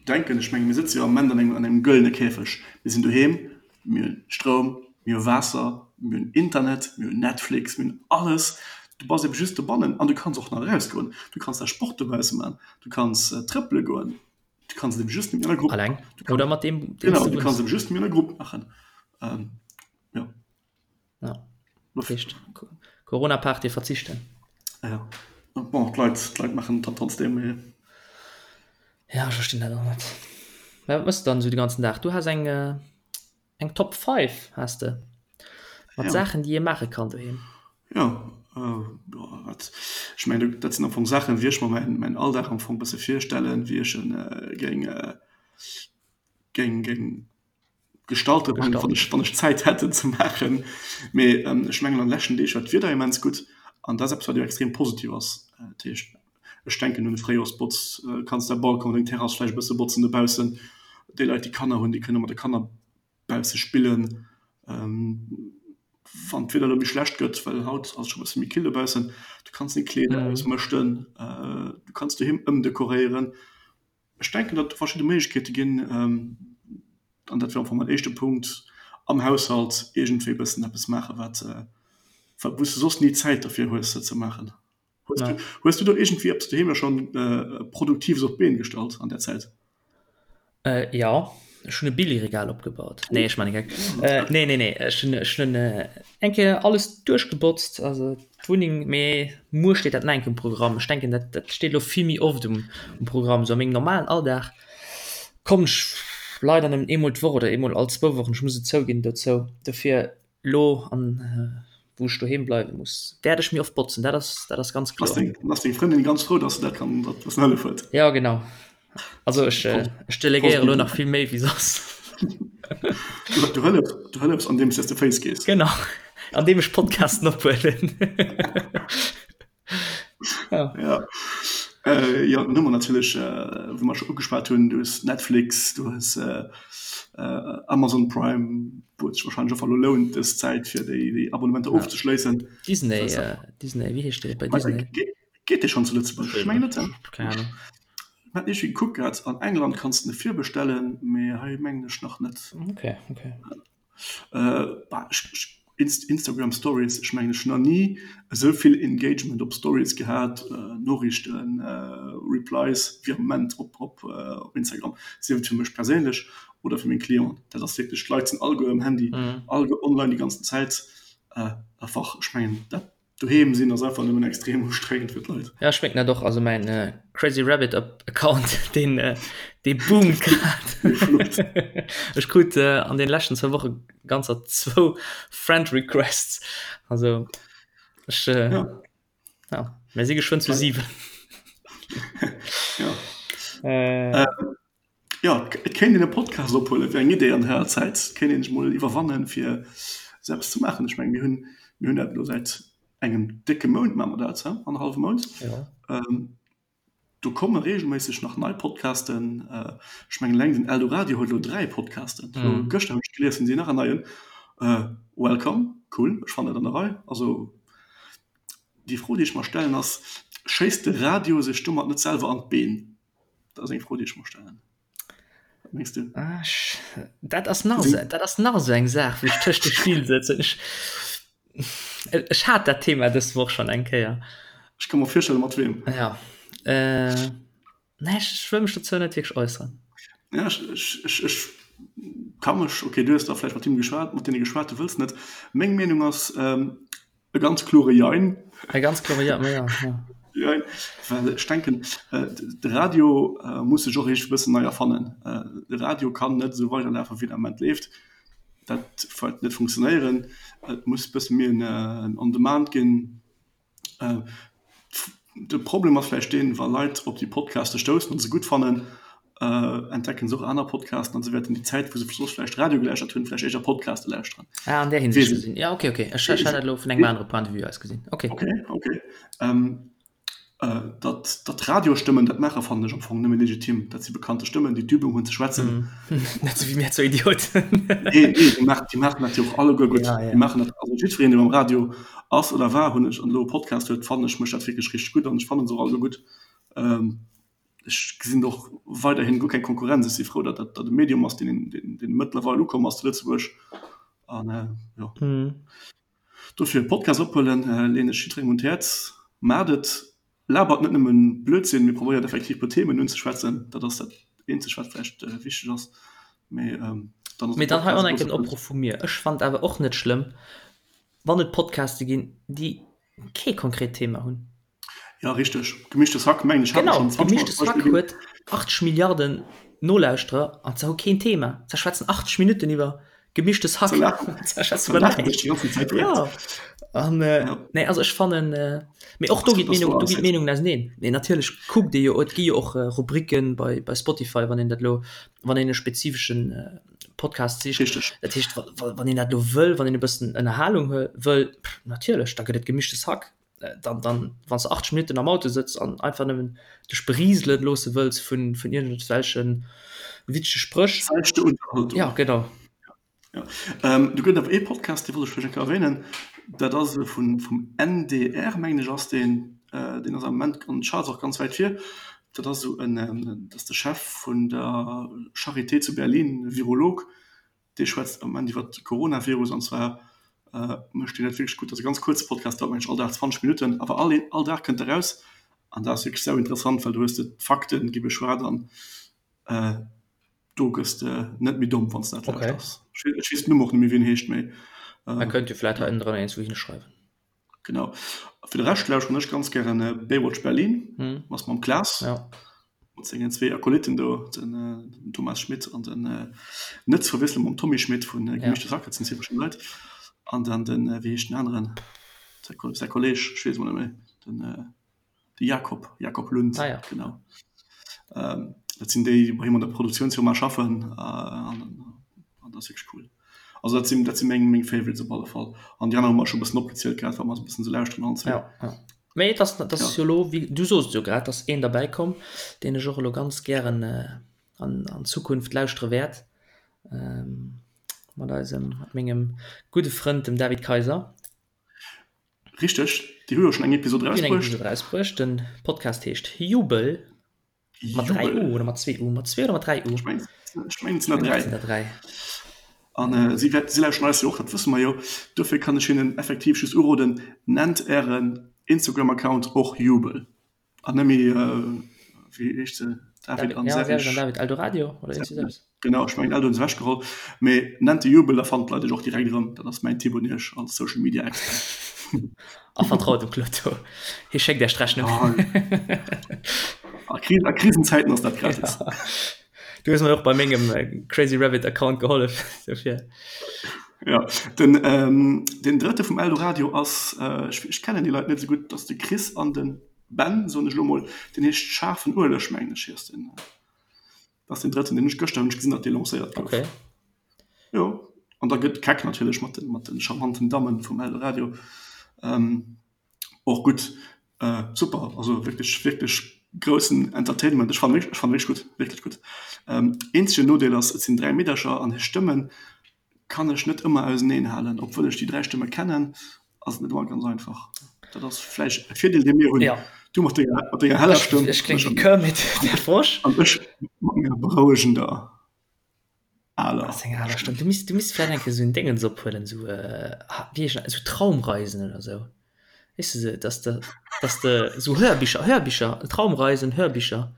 denken, ech menge mir sëtze jo am Moment an engem, an engem gëllene Käfeg. Mir sinn doheem, Mir hunn Stroum, mir hu Waasser, mir hunn Internet, mir hunn Netflix, mir hunn alles. Du bass ebe just dobannen an du kanns och nach erausgoen. Du kanns däi Sport dobausse man, du kanns trëppele goen, du kanns et ebe just nëmmen an der Grupp. Alleng oder mat deem, deem s du wunns. Genau, du kanns et ebe just nëmmen an der Grupp maachen. Jo. Ja, dat heescht Corona-Party verzichten. Ja, bon, d'Leit, d'Leit maachen et dann trotzdem, mee. Ja, ech verstinn dat och net. Mä wat mëss de dann esou de ganzen Dag? Du has eng, eng Top 5 has de, mat ja. Saachen, déi ee maache kann doheem. Ja, äh, wat, ech mengen, dat sinn am Fong Saachen, wéi ech mer mäin, mäin Alldag am Fong bësse virstellen, wéi ech en äh, géing, äh, géing, géing gestalten, wann wann ech, wann ech Zäit hätt en ze maachen. Mee ähm, ech mengen an de leschten Deeg war d'Wieder immens gutt an dat ass eppes wat jo extrem positiv ass. Dat heescht, ech denken un de Fréijoerspotz, kanns däi Balcon, deng Terrass vläicht e bësse botzen dobaussen. Déi Leit déi Kanner hunn, déi kënne mat de Kanner bausse spillen. Wann d'Wieder elo méi schlecht gëtt, well haut ass et scho e bësse méi kill dobaussen, du kanns deng Kleeder ausmëschten, du kanns doheem ëmdekoréieren. Ech denken, datt et do verschidde Méiglechkeete ginn, an dat wier am Fong mäin éischte Punkt, am Haushalt iergendwéi e bëssen eppes maachen, wat, wou s de soss ni Zäit derfir hues, se ze maachen. Hues du, hues du do iergendwéi eppes doheem da schonn Produktives op d'Been gestallt an där Zäit? Jo, ech hunn e Billigregal opgebaut. Nee, ech man e Geck. Nee, nee, nee, ech hunn, ech hunn eng Kéier alles duerchgebotzt, also d'Wunneng, mee muer steet dat nach eng Kéier um Programm. Ech denken, dat, dat steet elo vill méi oft um, um Programm. Sou a mengem normalen Alldag kommen ech leider nëmmen eemol d'Woch oder eemol all zwou Wochen, ech muss et zouginn, dozou. Dofir elo an wou ech doheem bleiwe muss, wäert ech méi oft botzen, dat ass, dat ass ganz kloer. Ass deng, ass deng Frëndin ganz frou, dass se dat kann, dat bëssen hëllef huet? Jo, genau. Also ech, ech delegéiere elo nach vill méi wéi soss. Du, du hëllefs, du hëllefs andeems s de Féiss gees. Genau, andeem ech Podcasten ophuelen. Ja. Ja. Äh, ja, dann hu mer natierlech, äh, wou mer scho ugeschwat hunn, du hues Netflix, du hues äh, äh, Amazon Prime, wou et sech wahrscheinlech och elo lount dës Zäit fir déi, déi Abonnementer ja. ofzeschléissen. Disney, äh, Disney, wéi heescht dee bei Disney? Geet, geet dee schonn zu Lëtzebuerg? Ech mengen net. Keng Ahnung. Ech hat iergendwéi gekuckt gehat, an England kanns de en virbestellen, mee hei mengen ech nach net. Okay, okay. Instagram Stories, ech mengen ech hunn nach ni esou vill Engagement op Stories gehat, Noriichten, Replies wéi am Moment op op Instagram, sief et fir mech perséinlech oder fir meng Clienten. Dat ass wierklech, d'Leit sinn alleguer um Handy, alleguer online déi ganzen Zäit. Einfach ech mengen dat Doheem sinn ass einfach nëmmen extrem ustrengend fir d'Leit. Ja ech mengen dat och, also mäin Crazy Rabbit Account deen dee boomt grad. Ech krut an den leschten zwou Woche ganzer zwou Friend Requests, also ech ja, ja mir si geschwënn zu 7. Ja. Äh. Jo, et kéint een e Podcast ophuelen, wär eng Idee an der Zäit. Et kéint een sech mol iwwerwannen, fir esou eppes ze maachen. Ech mengen, mir hunn, mir hunn dat elo säit engem décke Mount maache mer dat, he, annerhallwe Mount. Jo. Do komme reegelméisseg nach nei Podcasten. Ech mengen, eleng den Eldoradio huet elo 3 Podcasten. Elo gëschter hunn ech gelies, hunn si nach en neien. Welcome, cool, ech fannen dat an der Rei. Also, déi Fro, déi ech mer stellen, ass, Schéisst de Radio sech domat net selwer an d'Been? Dat ass eng Fro, déi ech mer stellen. Mengs du? Ah, ech, dat ass nach esou, dat ass nach esou eng Saach, wou ech tëscht de Still sëtzen. Ech, ech hat dat Thema dës Woch schonn eng Kéier. Ech ka mer virstellen, mat weem. Ja. Äh, nee, ech, ech wëll mech dozou net wierklech äusseren. Ja, ech, ech, ech, ech ka mech, okay, du hues da vläicht mat him geschwat, mat deene geschwat, du wëlls net. Meng Meenung ass, ähm, E ganz klore Jein. E ganz klore Ja, ma ja, ja. Jein, well ech denken, de Radio muss sech och eescht e bëssen nei erfannen. De Radio kann net esou weiderlafen, wéi en am Ament leeft. Dat wäert net funktionéieren. Et muss e bësse méi en On-Demand ginn. De Problem ass vläicht deen, wa Leit op déi Podcaste stoussen an se gutt fannen, entdecken se och aner Podcasten an se wäerten déi Zäit, wou se soss vläicht Radio gelauschtert hunn, vläicht éischter Podcaste lauschteren. Ah, an där Hinsicht gesinn. Ja, okay, okay. Ech hat dat elo vun engem anere Point de vue aus gesinn. Okay. Okay, okay. Datt, datt Radiostëmmen dat maachen, fannen ech am Fong nëmme legitim. Dat si bekannte Stëmmen, déi d'Übung hunn ze schwätzen. Net sou wéi mir zwou Idioten. Nee, nee, déi maachen, déi maachen dat jo och alleguer gutt. Ja, ja. Déi maachen dat, also jiddwereen, dee beim Radio ass oder war, hunn ech, an elo e Podcast huet, fannen ech, mécht dat wierklech richteg gutt an ech fannen se och alleguer gutt. Ech gesinn do och weiderhin guer keng Konkurrenz. Ech si frou, datt dat e Medium ass, deen, deen, deen mëttlerweil ukomm ass zu Lëtzebuerg an, jo. Dofir Podcast ophuelen, leen ech jidderengem un d'Häerz. Maacht et, labert net nëmmen Blödsinn, mee probéiert effektiv puer Themen unzeschwätzen. Dat ass dat eenzegt wat vläicht wichteg ass. Mee dann ass Mee dann hei och nach en Opruff vu mir, Ech fannen et awer och net schlëmm, wann et Podcaste ginn, déi kee konkret Thema hunn. Ja richteg, Gemischtes Hack mengen ech hat mer schonn 20 Mol als Gemischtes Hack huet 80 Milliarden Nolauschterer an se hu keen Thema. Se schwätzen 80 Minutten iwwer Gemischtes Hack. Se schwätzen iwwer näischt. Ja an nee also ech fannen mee och do ginn d'Meenungen do ginn d'Meenungen auseneen. Mee natierlech kuckt ee jo et gi jo och Rubriken bei bei Spotify wann een dat elo wann een e spezifeschen Podcast sicht. Richteg. Dat heescht wann een dat elo wëll wann een e bëssen Ënnerhalung wëll natierlech da gëtt et Gemischtes Hack. Dann, dann wann s de 80 Minutten am Auto sëtz an einfach nëmmen dech berieseln loosse wëlls vun, vun iergendwelche witzege Spréch. Seichte Unterhaltung. Ja, genau. Ja. Ähm, do gëtt awer ee Podcast, dee wollt ech vläicht eng Kéier erwähnen. Dat ass e vun, vum NDR, mengen ech ass deen. Äh, deen ass am Moment an den Charts och ganz wäit vir. Dat ass esou en, dat ass de Chef vun der Charité zu Berlin, Virolog. Dee schwätzt am Moment iwwer de Coronavirus an zwar mécht deen dat wierklech gutt. Dat ass e ganz kuerze Podcast, dauert mengen ech all Dag 20 Minutten, awer all all Dag kënnt e raus an dat ass wierklech sau interessant, well do hues de d'Fakten gi beschwat an do gëss de net méi domm, wann s de dat lauschters. Ech weess den Numm och net méi, wéi en heescht, mee. Mer kënnt jo vläit hei ënnendrënner eens wou hinschreiwen. Genau. Fir de Rescht lauschteren ech ganz gären Baywatch Berlin, ass mam Klaas, mat sengen zwee Akolytten do, den Thomas Schmitt an den, net ze verwiesselen mam Tommy Schmitt vu Gemischtes Hack, dat sinn zwee verschidden Leit, an dann den, wéi heescht den aneren, säi Kolleg, ech weess emol net méi, den. De Jakob, Jakob Lund, ah, ja. genau. Ähm, dat sinn déi, déi bei him an der Produktiounsfirma schaffen äh, an, an dat ass wierklech cool. Also dat sinn, dat sinn meng, meng Favorites op alle Fall. An déi aner hu mer scho bëssen opgezielt grad, wat mer esou bëssen esou lauschteren allen zwee. Ja, ja. Mee et ass, dat ass ja. jo lo, wéi, du soos et jo grad, dass een derbäi komm, deen ech och elo ganz gären äh, an, an Zukunft lauschtere wäert. Ähm, mat eisem, mat mengem gudde Frënd, dem David Kaiser. Richteg, déi hu jo schonn eng Episod Déi hunn eng Episod erausbruecht. Den Podcast heescht Jubel. Mat 3 U oder mat 2 U? Mat 2 oder mat 3 U? Ech mengen, et sinn der 3. Et sinn der 3. An si wäert, si lauschteren eis jo och, dat wësse mer jo. Dofir kann ech hinnen effektiv just uroden, Nennt ären Instagram-Account och Jubel an net méi, wéi heescht se, David an Serge. An David Eldoradio oder iergendwéi esou eppes. Genau, ech mengen Eldo hunn se ewechgeholl. Mee nennt de Jubel, da fannen d'Leit iech och direkt erëm. Dat ass mäin Tipp un iech als Social Media Expert. A vertraut dem Cloto, hie schéckt iech d'Rechnung. A Krisenzäiten ass dat gratis. Du hues mir och bei mengem Crazy Rabbit Account gehollef, dofir. Ja, den, ähm, den drëtte vum Eldoradio ass, ech, ech kennen déi Leit net esou gutt, dat ass de Chris an de Ben, soen ech elo mol. Deen heescht Schaarfen Ueleg, mengen ech, ass den. Dat ass den drëtten, deen ech gëschter hunn ech gesinn, datt dee lancéiert gouf. Okay. Jo, an da gëtt Keck natierlech mat de, mat de charmanten Dammen vum Eldoradio. Ähm, och gutt. Äh, super, also wierklech, wierklech groussen Entertainment. Ech fannen wierklech, ech fannen wierklech gutt, wierklech gutt. Ähm, eenzegen Nodeel ass, et sinn 3 Meedercher an hir Stëmmen kann ech net ëmmer auseneen halen. Obwuel ech déi 3 Stëmme kennen, ass et net ëmmer ganz einfach. Dat ass vläicht e Virdeel, dee mir hunn. Ja. Du mat denger, mat denger heller Stëmm. Ech kléng wéi Kermit der Frosch. An ech mat menger berouegender. Aler. Ass eng aler Stëmm. Du misst, du misst vläicht eng Kéier esou en Déngens ophuelen, esou, ah, wéi heescht dat, esou Traumreisen oder esou. Weess de, esou, dass de, dass de esou Hörbicher, Hörbicher, Traumreisen, Hörbicher.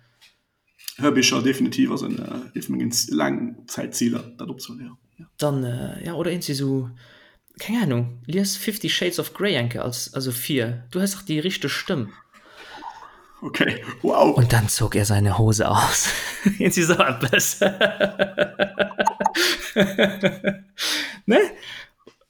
Hörbicher, definitiv ass en, ee vu mengen Laangzäitziler, dat opzehuelen, jo. Dann, ja, oder iergendwéi esou, keng Ahnung, lies Fifty Shades of Grey eng Kéier als, also vir. Du hues dach déi richteg Stëmm. Okay, wow. Und dann zog er seine Hose aus. Irgendwie so etwas. Ne?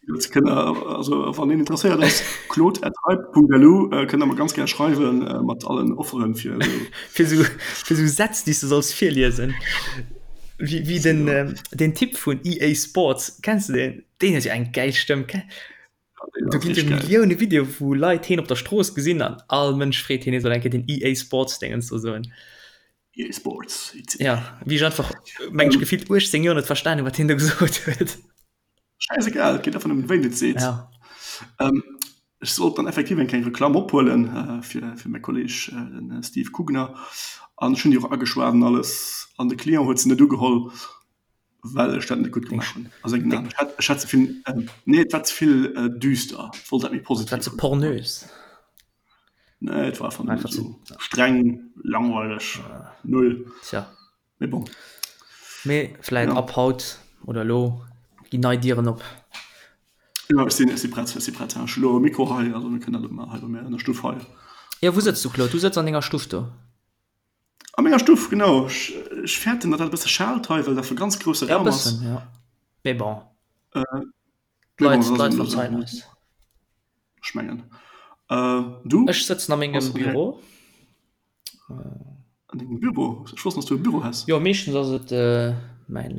Jetzt kënnt der, also wann een interesséiert ass, claude@hype.lu äh, kënnt der mer ganz gär schreiwen äh, mat allen Offeren fir esou. Fir sou, fir sou Sätz, déi s du solls virliesen. Wéi, wéi den, ähm, den Typ vun EA Sports, kenns du deen? Deen huet jo eng gäil Stëmm. Do ginn jo Millioune Videoe wou Leit heen op der Strooss gesinn an all Mënsch freet heen, hie soll eng Kéier den EA Sports Déngens do soen. EA Sports. Ja, wéi ech einfach, meng ech, gefillt 18 Joer net verstan hunn, wat hien do gesot huet. Schäisegal, et geet einfach nëmmen, wéi en et seet. Ja. Ähm, ech sollt dann effektiv eng kleng Reklamm ophuelen äh, fir, fir mäi Kolleg, äh, den Steve Kugner. An ech hunn déi och ageschwat an alles. An de Client huet se net ugeholl. Well ech dat net gutt gemaach hunn a sengen Aen. Ech hat, ech hat ze vill, nee, et war ze vill düster. Ech wollt dat méi positiv. Et war ze pornös. Nee, et war einfach nëmmen esou streng, langweileg, null. Tja. Mee bon. Mee vläit ab haut oder elo ginn nei Dieren op. Jo, ech sinn, ech si prett, ech si prett. Ech hu lo e Mikro hei, also mir kënnen dat ëmmer hei bei mir an der Stuff hei. Jo, wou sëtz du, Claude? Du sëtz an denger Stuff do? A menger Stuff, genau. Ech, ech fäerten, datt dat e bësse schaalt hei, well dat e ganz grousse Ja, e Raum ass. bëssen, ja. Mee bon. Äh, mee bon, D'Leit, dat ass d'Leit eben esou. verzeien eis. Ech mengen. Äh, du? Ech sëtzen a mengem Bass an Büro. An dengem Büro? Ech wosst net, dass du e Büro häss. Jo, meeschtens ass et mäin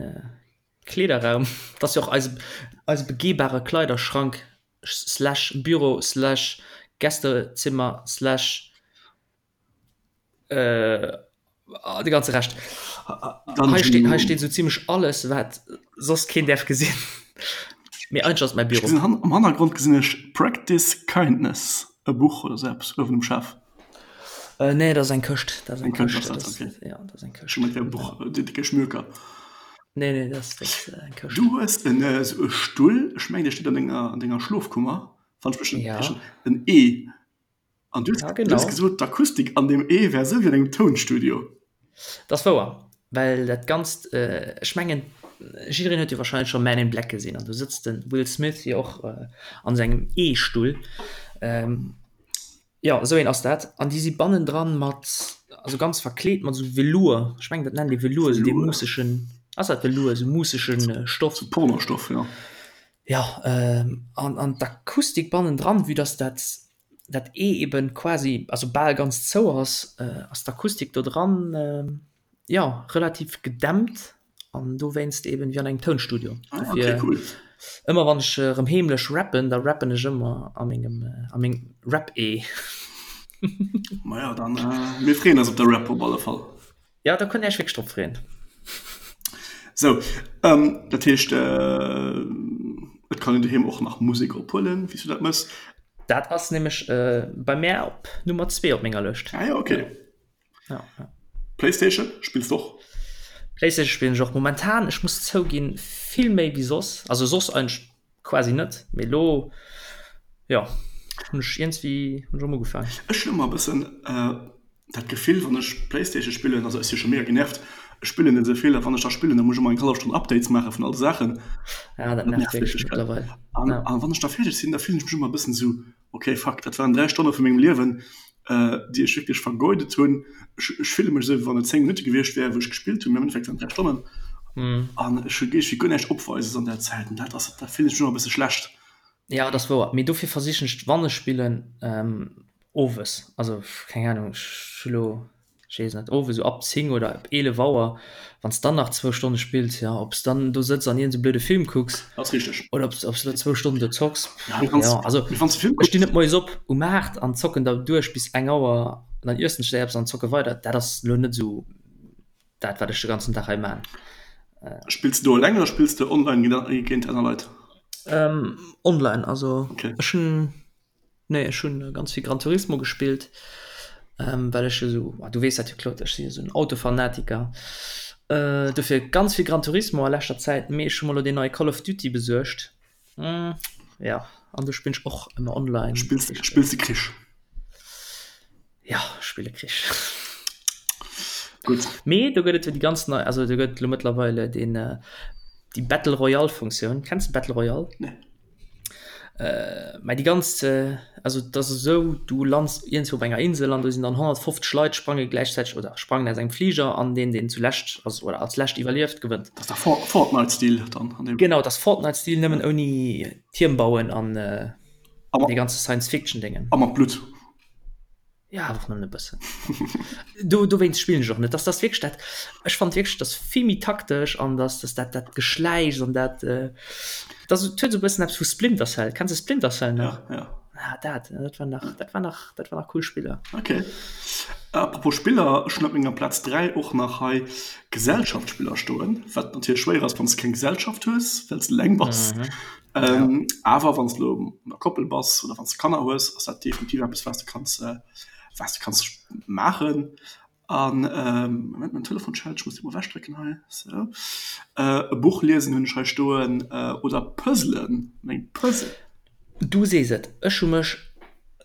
Kleederraum. Dat ass jo och eise, eise begehbare Kleiderschrank slash Büro slash Gästezimmer slash Äh, de ganze Rescht. Hei steet, hei steet sou zimmlech alles, wat soss keen däerf gesinn. Mee eigentlech ass et mäi Büro. Ech gesinn am Hannergrond gesinn ech Practice Kindness, e Buch oder sou eppes uewen um Schaf. Äh, nee, dat ass eng Këscht. Dat ass eng Këscht, ass dat, okay. Ja, dat ass eng Këscht. Ech hu gemengt, et wär e Buch, déi décke Schmöker. Nee, nee, dat ass, dat ass eng Këscht. Du hues en esou e Stull, ech mengen, dee steet an denger, an denger Schlofkummer, wann ech mech net Ja. täuschen, en E. An du hues, Ja, du hues genau. gesot, d'Akustik an deem E wär esou wéi an engem Tounstudio. Dat ass wouer, well dat Ganzt, ech mengen, jiddereen huet jo warscheinlech scho Men in Black gesinn an do sëtzt de Will Smith jo och an sengem E-Stull. Jo, esou een ass dat. An déi si bannendran mat, also ganz verkleet mat esou Velours, ech mengen, dat nennt ee Velours, esou dee muussegen, ass dat Velours, esou muussege Stoff. Sou Pornostoff, jo. Jo, an, an d'Akustik bannendran, vue dass dat dat E eben quasi, also bal ganz zou ass, ass d'Akustik do dran, jo, relativ gedämpt an dowéinst eben wéi an engem Tounstudio. Ah, okay, Dofir cool. ëmmer wann ech erëm heemlech rappen, da rappen ech ëmmer a mengem, a mengem Rap-E. Maja, dann, mir freeën eis op de Rap op alle Fall. Jo, do kënnt Dir Iech wierklech drop freeën. Sou, dat heescht, et kann een doheem och nach Musek ophuelen, wéi s du dat mëss. Dat ass nämlech bei mär op Nummer zwee op menger Lëscht. Ah jo, okay. Ja, ja. Playstation spills de och? Playstation spillen ech och momentan, ech muss zouginn, vill méi wéi soss. Also soss eigentlech quasi net, mee elo, jo, hunn ech iergendwéi hunn ech erëm ugefaangen. Ech hunn ëmmer e bëssen dat Gefill, wann ech Playstation spillen, also ech si scho mega genervt, ech spillen net esou vill, a wann ech da spillen, da muss ech ëmmer eng hallef Stonn Updates maache vun all de Saachen. Ja, dat nervt wierklech mëttlerweil. An, an wann ech da fäerdeg sinn, da fillen ech mech ëmmer e bëssen esou, Ok, fuck, dat waren 3 Stonne vu mengem Liewen, déi ech wierklech vergeudet hunn. Ech, ech fille mech esou, wéi wann et 10 Minutte gewiescht wären, wou ech gespillt hunn, mee am Endeffekt waren et 3 Stonnen. An ech hu géif guer näischt opweises an där Zäit. An dat ass, da fillen ech mech ëmmer e bësse schlecht. Ja, dat ass wouer. Mee dofir versichen ech, wann ech spillen, owes, also keng Ahnung, ech hu lo Ech weess net, owes esou ab 10 oder ab 11 Auer, wann s dann nach zwou Stonne spills, jo, ob s dann do sëtz an iergend esou blöde Film kucks Ass richteg. oder ob s ob s elo zwou Stonnen do zocks, Ja, du kanns, jo, also mee wann s de Film ech stinn kucks. net moies op um 8 an zocken da duerch bis eng Auer an dann iessen ech eppes an zocke weider, dat ass elo net esou dat wat ech de ganzen Dag hei man. Spills de do eleng oder spills de online géint aner Leit? Online, also Okay. ech hunn Nee, ech hunn ganz vill Gran Turismo gespillt, well ech esou, du weess dat jo Claude, ech sinn jo esou en Autofanatiker. Dofir ganz vill Gran Turismo a leschter Zäit, mee ech hu mer elo deen neie Call of Duty besuergt. Jo, an do spillen ech och ëmmer online. Spills spills de Krich? Jo, ech spille Krich. Gutt. Mee do gëtt et jo déi ganz nei, also do gëtt et elo mëttlerweile deen, déi Battle Royale Funktioun. Kenns de Battle Royale? Nee. Mä déi ganz, also et ass esou, du lands iergendwou op enger Insel an do sinn dann 150 Leit sprange gläichzäiteg oder sprangen aus engem Fliger an deen, deen zulescht ass oder als lescht iwwerlieft, gewënnt. Dat ass da Fortnite-Stil dann an deem. Genau, dat ass Fortnite-Stil, nëmmen ouni Tierm bauen an dee ganze Science-Fiction-Déngen. A mat Blutt. Ja, awer och nëmmen e bëssen. Do, dowéinst spillen ech och net. Dass das wierklech dat, ech fand wierklech, dass vill méi taktesch an dass dass dat dat Geschläichs an dat, dass et huet esou e bëssen eppes vu Splinter Cell. Kenns de Splinter Cell nach? Ja, ja. Ah, dat, dat war nach, dat war nach, dat war nach cool Spiller. Okay. Apropos Spiller, ech hunn op menger Plaz 3 och nach hei Gesellschaftsspiller stoen, wat natierlech schwéier ass, wann s de keng Gesellschaft hues, well s de eleng bass. Mhm. Ähm, ja. Awer wann du an der Koppel bass oder wann du Kanner hues, ass dat definitiv eppes was du kanns äh, was du kanns maachen. An ähm, Moment, mein Telefon schellt, ich muss immer wegdrücken hei. So. Äh, e Buch liesen hunn ech hei stoen äh, oder Puzzlen, meng Puzzle. Du sees et, ech hu mech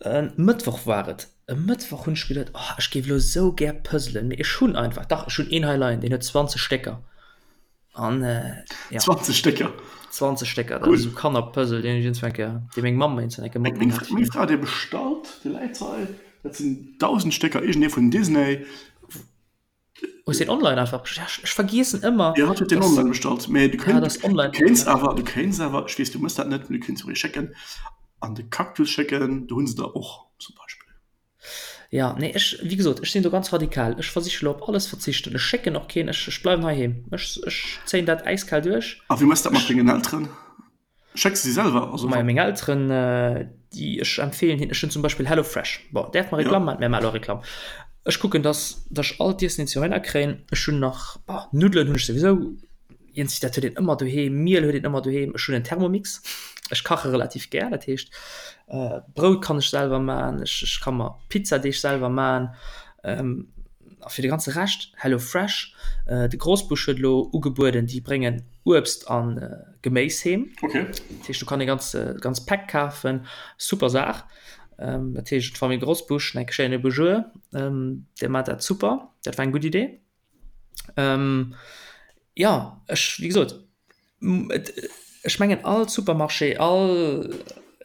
e Mëttwoch war et, e Mëttwoch hunn ech geduet, oh ech géif elo esou gär puzzlen, mee ech hunn einfach, dach ech hunn een hei leien, deen huet 20 Stécker. An äh, ja. 20 Stécker. 20 Stécker, dat ass esou Kannerpuzzle, deen ech iergendwann eng Kéier, dee meng Mamm mer iergendwann eng Kéier matginn hat. Meng Fra huet ee bestallt, dee läit hei. Dat sinn 1.000 Stécker, iergendee vun Disney. Hues deen online einfach bestallt? Ja, ech vergiessen ëmmer. Jo, hatt huet deen online bestallt. Mee du kéints, du kéints awer, du kéints awer, ech weess, du mëss dat net, mee du kéints och ee schécken, an de Cactus schécken, do hu se der och zum Beispill. Ja, nee, ech, wéi gesot, ech sinn do ganz radikal. Ech versiche lo op alles verzichten. Ech schécken och keen, ech, ech bleiwen heiheem. Ech, ech zéien dat äiskal duerch. A wéi méchs dat mat dengen Elteren? Schécks de si selwer? Also Majo, meng Elteren, déi, ech empfeelen hinnen, ech hunn zum Beispill Hello Fresh. Bon, däerf mer Reklamm maachen? Mir maache lo Reklamm. Ech kucken, dass, dass ech all d'Iessen, déi ech heihinner kréien, ech hunn nach, bon, Nuddelen hunn ech souwisou. Iergendwéi dat huet een ëmmer doheem, Miel huet een ëmmer doheem. Ech hunn en Thermomix, ech kache relativ gär, dat heescht Brout kann ech selwer man, ech ech ka mer Pizzadeeg selwer man. A fir de ganze Rescht Hello Fresh. De Grosbusch huet elo ugebueden, déi bréngen Uebst a Geméis heem. Dat heescht do kann ee ganz ganz Päck kafen, super Saach. Dat heescht d'Famill Grosbusch, eng schéine Bonjour, déi maacht dat super, dat war eng gutt Idee. Ähm, ja, ech, wéi gesot, et, ech mengen all Supermarché, all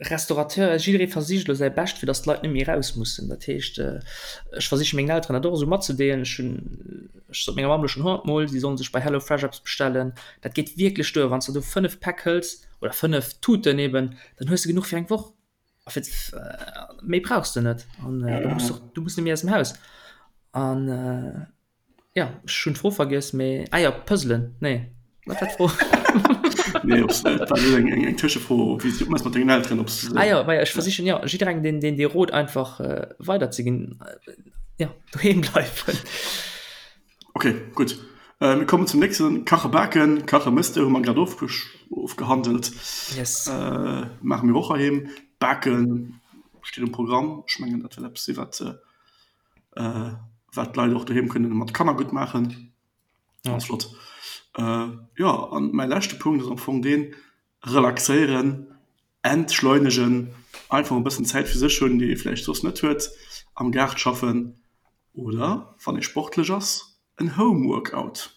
Restaurateur, jidderee versicht elo säi Bescht, fir datt d'Leit net méi eraus mussen. Dat heescht, ech versiche mengen Elteren dat och esou matzedeelen. Ech hunn, ech sot menger Mamm elo schonn honnertmol, si solle sech bei HelloFresh eppes bestellen. Dat geet wierklech duer, wann s de do 5 Päck hëls oder 5 Tuten eben, dann hues de genuch fir eng Woch. A fir méi brauchs de net an du muss och du muss net méi aus dem Haus. An ja ech hunn d'Fro vergiess, mee ah jo Puzzelen, nee wat war d'Fro? Nee op dat war eng eng Tëschefro, wéi s du mat dengen Elteren op Ah jo, ma ech versichen jo jidderengem deen deen dee Rot einfach weiderzeginn, jo doheem bleiwen. Ok, gutt. Mir kommen zum nächsten. Kache baken, kache mëss de, hu mer grad ofgehandelt. Yes. Maache mir och heiheem. Baken steet um Programm. Ech mengen, dat wäert eppes si wat wat d'Leit och doheem kënnen mat Kanner gutt maachen. Ganz flott. Jo, an mäi leschte Punkt ass am Fong deen, relaxéieren, entschleunegen, einfach e bëssen Zäit fir sech hunn, déi ee vläicht soss net huet, am Gaart schaffen, Oder, wann ee sportlech ass, en Home Workout.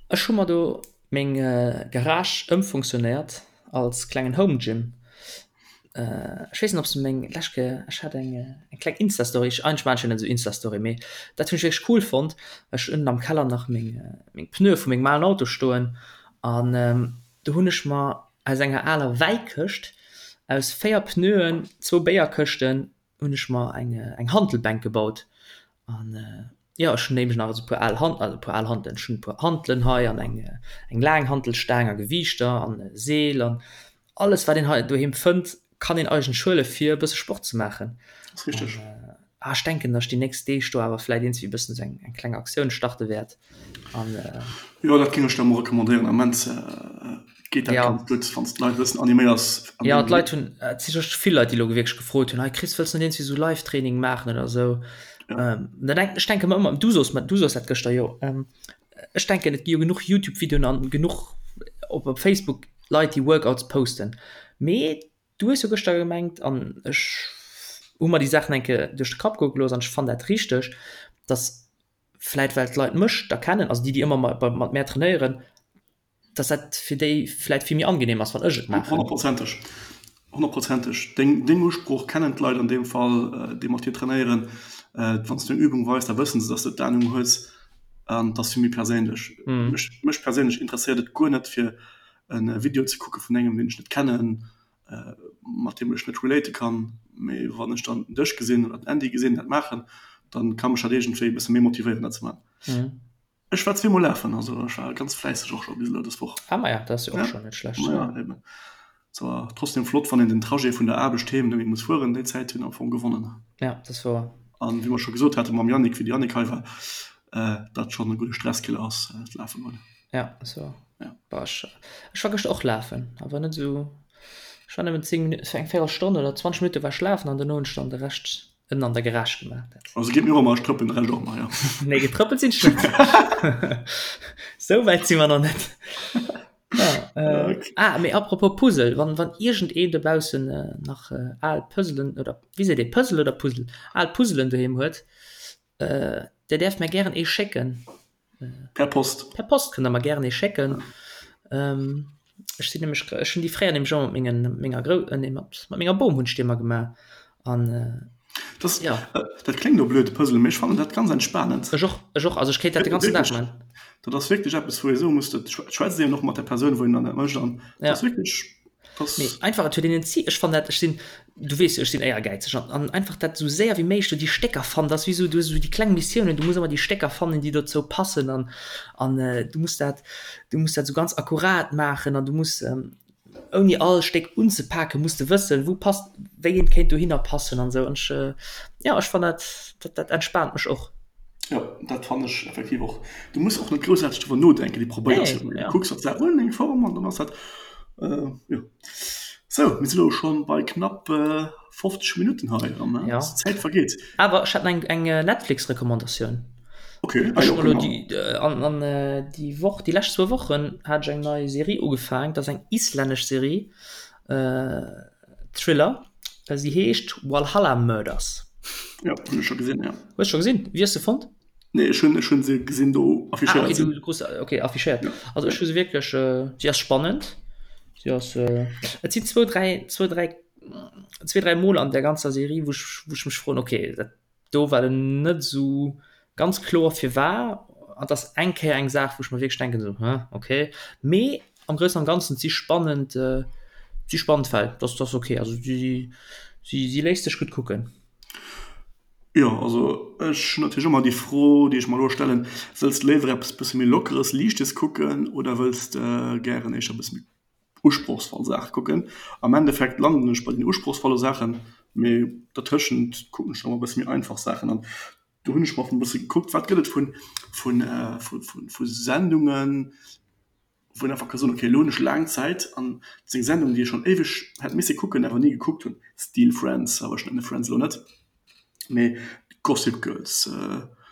Ech hu mer do meng Garage ëmfunktionéiert als klengen Home Gym. Ech weess net ob s de meng lescht Kéier, ech hat eng eng kleng Insta-Story, ech eigentlech maachen ech jo net esou Insta-Story, mee dat hunn ech wierklech cool fonnt, well ech hunn ënnen am Keller nach meng meng Pneue vu mengem alen Auto stoen an do hunn ech mer aus enger aler Wäikëscht aus 4 Pneuen, zwou Béierkëschten, hunn ech mer eng eng Hantelbänk gebaut an jo ech hunn nämlech nach esou puer al Han also puer al Hantelen, ech hunn e puer Hantelen hei an eng eng laang Hantelstaang a Gewiichter an e Seel an alles wat een hei doheem fënnt kann een eigentlech huele fir e bësse Sport ze maachen. Ass richteg. An ech denken, datt ech déi nächst Deeg do awer vläit iergendwéi e bëssen esou eng eng kleng Aktioun starte wäert an. Jo dat géing ech der emol recommandéieren am Ament geet dat ganz gutt wann s d'Leit e bëssen animéiers. Jo d'Leit hunn, et si scho vill Leit déi elo wierklech gefrot hunn, hei Chris wëlls net iergendwéi esou Live-Training maachen oder esou. Ja. Ähm, da denk, ech denke mer ëmmer, du soos mer, du soos dat gëschter jo, ähm, ech denken et gi jo genuch YouTube-Videoen an genuch op, op Facebook Leit déi Workouts posten. Mee du hues jo gëschter gemengt an ech hu mer déi Saachen eng Kéier duerch de Kapp goe gelooss an ech fannen dat richteg, dass vläit well d'Leit mech da kennen, also déi déi ëmmer mat mär trainéieren, dass dat fir déi vläit vill méi angenehm ass, wann ech et maachen. Honnertprozenteg, honnertprozenteg. Deng, deng Usprooch kennen d'Leit an deem Fall, déi mat dir trainéieren. Wann s du eng Übung weis, da wëssen se, dass de d'Anung hues an et ass vill méi perséinlech. Mech, mech perséinlech interesséiert et guer net, fir e Video ze kucke vun engem, deen ech net kennen, mat deem ech net relate kann. Mee wann ech dann dech gesinn oder den Andy gesinn dat maachen, dann ka mech dat iergendwéi e bësse méi motivéieren, dat ze maachen. Ech war zweemol lafen, also ech war ganz fläisseg och scho bis elo dës Woch. Ah maja, dat ass jo och scho net schlecht. Ja, eben. Zwar trotzdem flott, wann een den Trajet vun der Aarbecht heem net méi muss fueren, déi Zäit hunn am Fong gewonnen. Ja, dat ass wouer. An wéi mer scho gesot hate mam Yannick, wéi de Yannick hei war, dat schonn e gudde Stresskiller ass, d'Lafe goen. Ja, dat ass wouer. Ja. Bah, ech, ech war gëschter och lafen, awer net esou, ech war nëmmen 10 Minutten, eng Véierelstonn oder 20 Minutte war ech lafen an duerno hunn ech dann de Rescht ënnen an der Garage gemaach. Dat. Also geet mir och ëmmer, ech trëppelen de Rescht och ëmmer, jo. Nee, getrëppelt sinn ech net. Sou wäit si mer nach net. Ja, äh, okay. Ah, mee apropos Puzzle, wann, wann iergendeen dobaussen äh, nach äh, al Puzzlen oder wéi seet ee, Puzzle oder Puzzle, al Puzzlen doheem huet, äh, der däerf mär gären ee schécken. Per Post. Per Post kënnt der mer gären ee schécken. Ähm, ech sinn nämlech, ech hunn déi fréier nämlech ëmmer mat mengen, menger Grou, nee, mat, mat menger Bom hunn ech déi ëmmer gemaach. An Das, ja. Dat kléngt elo blöd, Puzzle, mee ech fannen dat ganz entspanend. Ech och, ech och. Also ech kéint dat de ganzen Dag man. Dat ass wierklech eppes, wou ee soe muss, dat schwätzt een och mat der Persoun, wou een dann dat mécht an dat ass wierklech. Mee einfach et huet een en Zil. Ech fannen dat, ech sinn, du weess jo, ech sinn éiergäizeg an an einfach dat esou séier wéi méiglech do déi Stécker fannen, dat ass wéi esou, du hues esou déi kleng Missiounen, du muss ëmmer déi Stécker fannen, déi dozou passen an an du muss dat, du muss dat esou ganz akkurat maachen an du muss ouni all Stéck unzepaken, muss de wëssen, wou passt, wéi eent kéint dohinner passen an esou an ech, jo, ech fannen dat, dat dat entspaant mech och. Jo, dat fannen ech effektiv och. Du muss och net groussaarteg driwwer nodenken, du probéiers jo, du kucks op d'Saach un, eng Form an dann ass dat, jo. Sou, mir si lo schonn bei knapp 50 Minutten hei an d'Zäit vergeet. Awer ech hätt eng eng Netflix-Recommandatioun. Ok, ah jo, kënne mer. An an déi Woch, déi lescht zwou Wochen hat ech eng nei Serie ugefaang, dat ass eng islännesch Serie. Thriller, si heescht Walhalla Murders. Jo, hunn ech scho gesinn, jo. Hues scho gesinn? Wéi hues de fonnt? Nee, ech hunn, ech hunn se gesinn do affichéiert ah, okay, sinn. Du krus, okay, affichéiert. Ja. Also ech hu se wierklech, äh, si ass spannend. Si ass, äh, et sinn zwou, dräi, zwou, dräi, zwee, dräi Mol an der ganzer Serie, wou ech, wou ech mech froen, okay, dat do war en net esou ganz kloer firwar an et ass eng Kéier eng Saach wou ech mer wierklech denken esou hm okay, mee am groussen am ganzen si spannend si spannend Fäll, dat ass okay, also si si si léisst sech gutt kucken. Jo, also ech hunn natierlech ëmmer déi Fro déi ech mer elo stellen, wëlls de léiwer eppes bësse méi lockeres, liichtes kucken oder wëlls de gären éischter e bësse méi usprochsvoll Saache kucken. Am Endeffekt landen ech bei den usprochsvolle Saachen, mee dertëschent kucken ech dann och e bësse méi einfach Saachen. An do hunn ech mer e bësse gekuckt, wat gëtt et vun vun vu Sendungen, wou een einfach ka soen, okay elo hunn ech laang Zäit an dat ass eng Sendung, déi ech schonn éiweg hätt misse kucken, awer ni gekuckt hunn, Steel Friends, awer ech nennen Friends elo net. Mee Gossip Girls,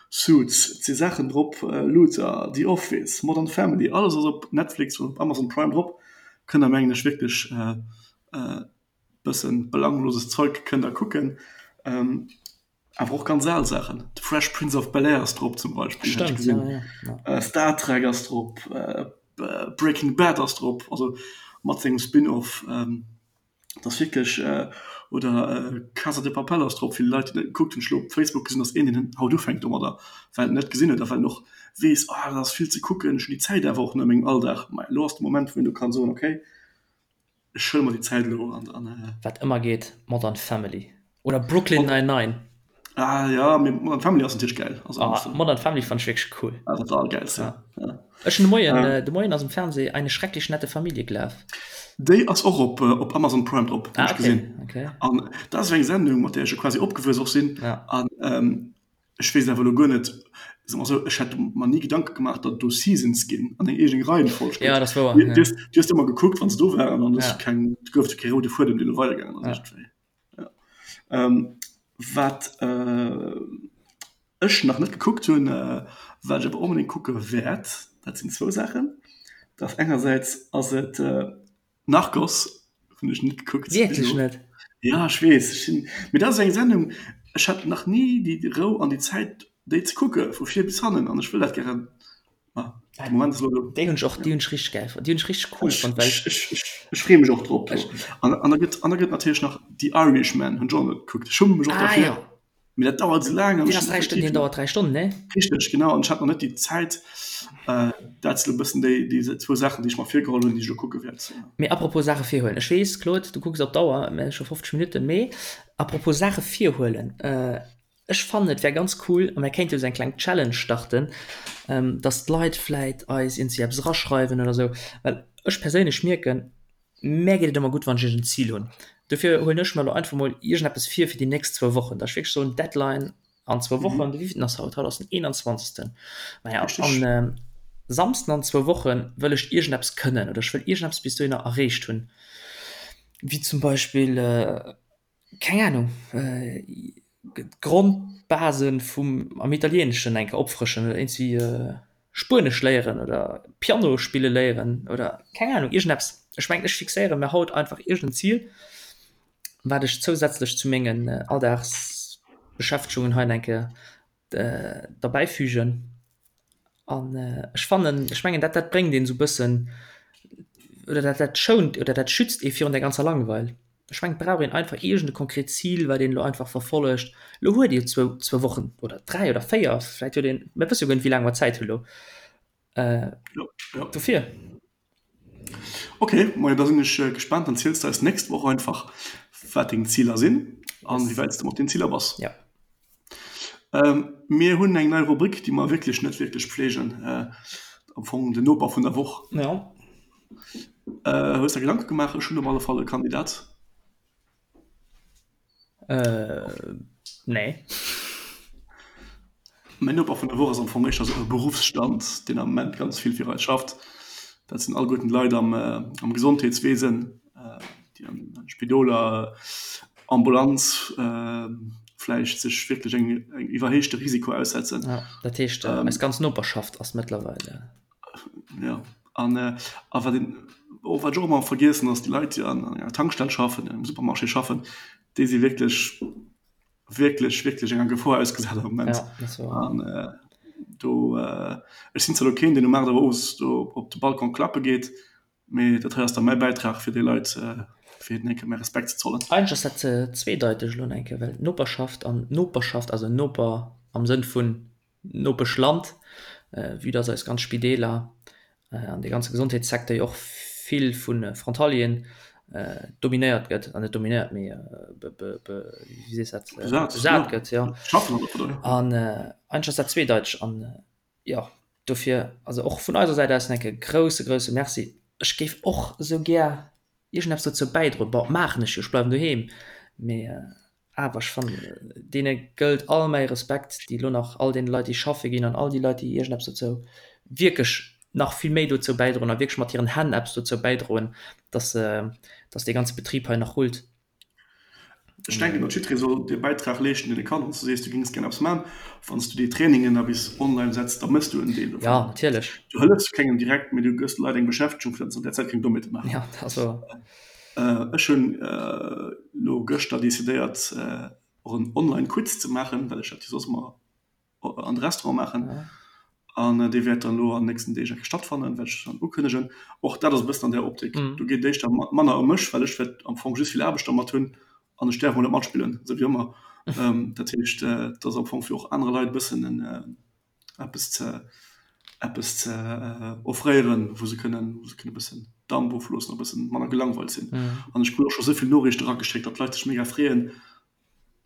Suits, et si Saachen drop, Luther, The Office, Modern Family, alles ass op Netflix oder op Amazon Prime drop. Kënnt der mengen ech wierklech e bëssen belangloses Zeug kënnt der kucken. Awer och ganz al Saachen, The Fresh Prince of Bel-Air ass drop zum Beispill, hat ech gesinn, Star Trek ass drop, Breaking Bad ass drop, also mat sengem Spin-off. Et ass wierklech, oder Casa de Papel ass drop, vill Leit déi net gekuckt hunn. Ech elo op Facebook gesinn, datt een deen haut ufänkt domadder, well en net gesinn huet a well en och weess, ah dat ass vill ze kucken, ech hunn déi Zäit awer och net a mengem Alldag. Mä elo ass de Moment, wou een do kann soen, okay, ech huele mer déi Zäit elo an an. Wat ëmmer geet, Modern Family oder Brooklyn Nine-Nine. Ah ja, mee Modern Family ass natierlech gäil. Also, ah, Modern Family fand ech wierklech cool. Ah, dat war allergäilste. Ja. Ja. Ech hunn de Moien, ähm, äh, de Moien ass um Fernseh eine schrecklich nette Familie gelaf. Déi ass och op, äh, op Amazon Prime drop, ah, okay. gesinn. Okay. An dat ass eng Sendung, mat där ech jo quasi opgewuess och sinn. Ja. An ähm, ech weess awer elo guer net, soe mer esou, ech hätt mer ni Gedanke gemaach, datt et do Seasons ginn an eng eegen Reihenfolg gëtt. Ja, dat ass wouer. Du, ja. du, hues, du hues ëmmer gekuckt, wann se do waren, an ja. keng, gouf kee roude Fuedem, deen do weidergaangen ass. Ja. Ähm, wat äh, Ech nach net gekuckt hunn, wat ech awer onbedéngt kucke wäert, dat sinn zwou Saachen. Dat ass engersäits ass et Narcos, hunn ech net gekuckt bis Wierklech elo. net? Jo, ech weess, ech sinn, mee dat ass eng Sendung, ech hat nach ni déi Rou an déi Zäit déi ze kucke vu vir bis hannen an ech wëll dat gären, ma de Moment ass elo do. Déi hunn ech och, déi hunn ech richteg gäil fonnt, déi hunn ech richteg cool fonnt, well Ech, ech, ech, ech freeë mech och drop. An, an da gëtt, an da gëtt natierlech nach The Irishman, hunn ech och net gekuckt, ech schumme mech och Ah derfir. jo. Mee dat dauert esou laang. Deen ass 3 Stonnen, deen dauert 3 Stonnen, ne? Richteg, genau. An ech hat nach net déi Zäit. Dat sinn e bëssen déi, déi zwou Saachen, déi ech mer virgeholl hunn, déi ech elo kucke wäert. Mee apropos Saache virhuelen, ech weess, Claude, du kucks op d'Auer, mir hu scho 50 Minutten, mee apropos Saache virhuelen, ech fannen, et wär ganz cool, a mir kéinte jo esou eng kleng Challenge starten, dass d'Leit vläit eis iergendwéi eppes eraschreiwen oder esou, well ech perséinlech mierken, Mär geet et ëmmer gutt, wann ech iergend Zil hunn. Dofir huelen ech mer elo einfach mol iergendeppes vir fir déi nächst zwou Wochen, dass ech wierklech soen, Deadline an zwou Wochen. De wéivilten ass haut? Haut ass den 21. Naja, an Samsden an zwou Woche wëll ech iergendeppes kënnen oder ech wëll iergendeppes bis dohinner erreecht hunn, wéi zum Beispill, keng Ahnung, d'Grondbasen vum am Italieeneschen eng Kéier opfrëschen oder iergendwéi Spuenesch léieren oder Piano spille léieren oder keng Ahnung, iergendeppes. Ech mengen, ech fixéiere mir haut einfach iergend en Zil, wat ech zousätzlech zu mengen Alldagsbeschäftegungen hei eng Kéier derbäifügen. An ech fannen, ech mengen dat dat bréngt een esou bëssen oder dat dat schount oder dat schützt ee virun der ganzer Langweil. Ech mengen et brauch een einfach iergend e konkret Zil, wat een elo einfach verfollegt. Elo huet Dir zwou zwou Wochen oder 3 oder 4, vläit huet een, mir wësse jo guer net wéi laang mer Zäit hu lo. Dofir. Ok, majo da sinn ech gespaant. Dann ziels de eis d'nächst Woch einfach wat deng Ziler sinn an wéi wäit s de mat den Ziler bass. Ja. Mir hunn eng nei Rubrik, déi mer wierklech net wierklech pflegen, am Fong den Noper vun der Woch. Ja. Hues der Gedanke gemaach? Ech hunn op alle Fall e Kandidat. Nee. Mäin Noper vun der Woch ass am Fong éischter esou e Beruffsstand, deen am Moment ganz vill fir eis schafft. Dat sinn alleguerten d'Leit am, am Gesondheetswesen, déi an de Spidoler, Ambulanz vläicht sech wierklech eng engem iwwerhéichte Risiko aussetzen. Ja, dat heescht, eis ganz Noperschaft ass mëttlerweil. Ja, an a wat een och, wat ech och ëmmer vergiessen, ass déi Leit, déi an enger Tankstell schaffen, an engem Supermarché schaffen, déi si wierklech, wierklech, wierklech enger Gefor ausgesat am Moment. Ja, dat ass wouer. An do, ech sinn zwar elo keen, deen um 8 Auer owes do op de Balcon klappe geet, mee dat hei ass da mäi Bäitrag fir déi Leit, fir hinnen eng Kéier mäi Respekt ze zollen. Eigentlech ass dat zweedeiteg elo eng Kéier, well Noperschaft an Noperschaft, also Noper am Sënn vun Nopeschland, vue dass eis ganz Spideeler an dee ganze Gesondheetssecteur jo och vill vu Frontalieren dominéiert gëtt, an net dominéiert, mee wéi sees dat, besat gëtt, jo. An eigentlech ass dat zweedeiteg. An jo, dofir, also och vun eiser Säit aus en enke grousse, grousse Merci. Ech géif och esou gär iergendeppes dozou bäidroen. Bon, maachen ech jo, ech bleiwen doheem, mee Awer ech fannen, deene gëllt all mäi Respekt, déi elo nach, all deene Leit, déi schaffe ginn an all déi Leit, déi iergendeppes dozou, wierklech nach vill méi dozou bäidroen a wierklech mat hiren Hänn eppes dozou bäidroen, dass, dass dee ganze Betrib hei nach rullt. Ech denken, datt jiddweree soll dee Bäitrag leeschten, deen e kann. Wann s du sees, du géings gär eppes maachen, wann s du déi Trainingen da bis online setz, da méchs du en Deel dovun. Jo, natierlech. Du hëllefs kengem direkt, mee du gëss de Leit eng Beschäftegung, fir datt se an där Zäit keng Dommheete maachen. Jo, dat ass wouer. Ech hunn elo gëschter decidéiert och en Online Quiz ze maachen, well ech dat jo soss ëmmer an de Restaurant maachen. An dee wäert dann elo an den nächsten Deeg eng Kéier stattfannen, wäert ech dann ukënnegen. Och dat ass e bëssen an där Optik. Do geet et éischter manner ëm mech, well ech wäert am Fong just vill Aarbecht dermat hunn an ech däerf emol net matspillen, esou wéi ëmmer. Dat heescht, et ass am Fong fir och anere Leit e bëssen en eppes ze eppes ze offréieren, wou se kënnen wou se kënnen e bëssen Damp ofloossen a e bëssen manner gelangweilt sinn. An ech krut och scho sou vill Noriichte erageschéckt, datt d'Leit sech mega freeën.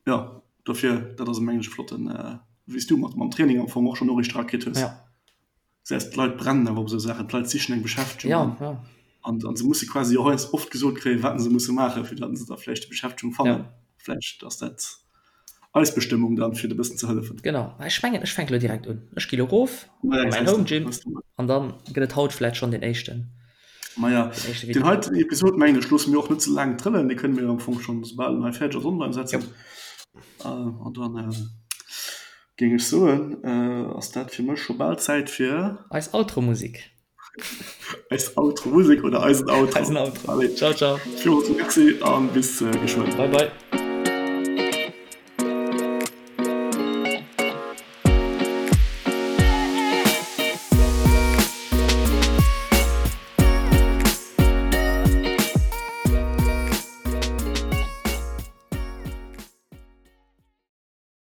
Jo, dofir, dat ass mengen ech e flotten, wéi s du mat mam Training am Fong och schonn Noriichte erakritt hues. Gesäis, d'Leit brennen awer op esou Saachen, d'Leit sichen eng Beschäftegung an an se musse quasi och heiansdo oft gesot kréien, wat se musse maachen, fir datt se da vläicht déi Beschäftegung fannen. Vläicht ass dat Eis Bestëmmung dann fir de bëssen ze hëllefen. Genau, ech mengen ech fänke lo direkt un. Ech gi lo rof a mäin Home Gym an dann gëtt et haut vläit schonn deen éischten. Maja, deen heiten Episod mengen ech loosse mir och net ze laang trëllen, dee kënne mir am Fong schonn soubal en hei fäerdeg ass online setzen. An dann. Géing ech soen, ass dat fir mech scho bal Zäit fir. Eis Outro-Musik. Eis Outro-Musik oder eisen Outro. Eisen Outro. Allez. Ciao, ciao. Villmools Merci an bis geschwënn. Bye, bye.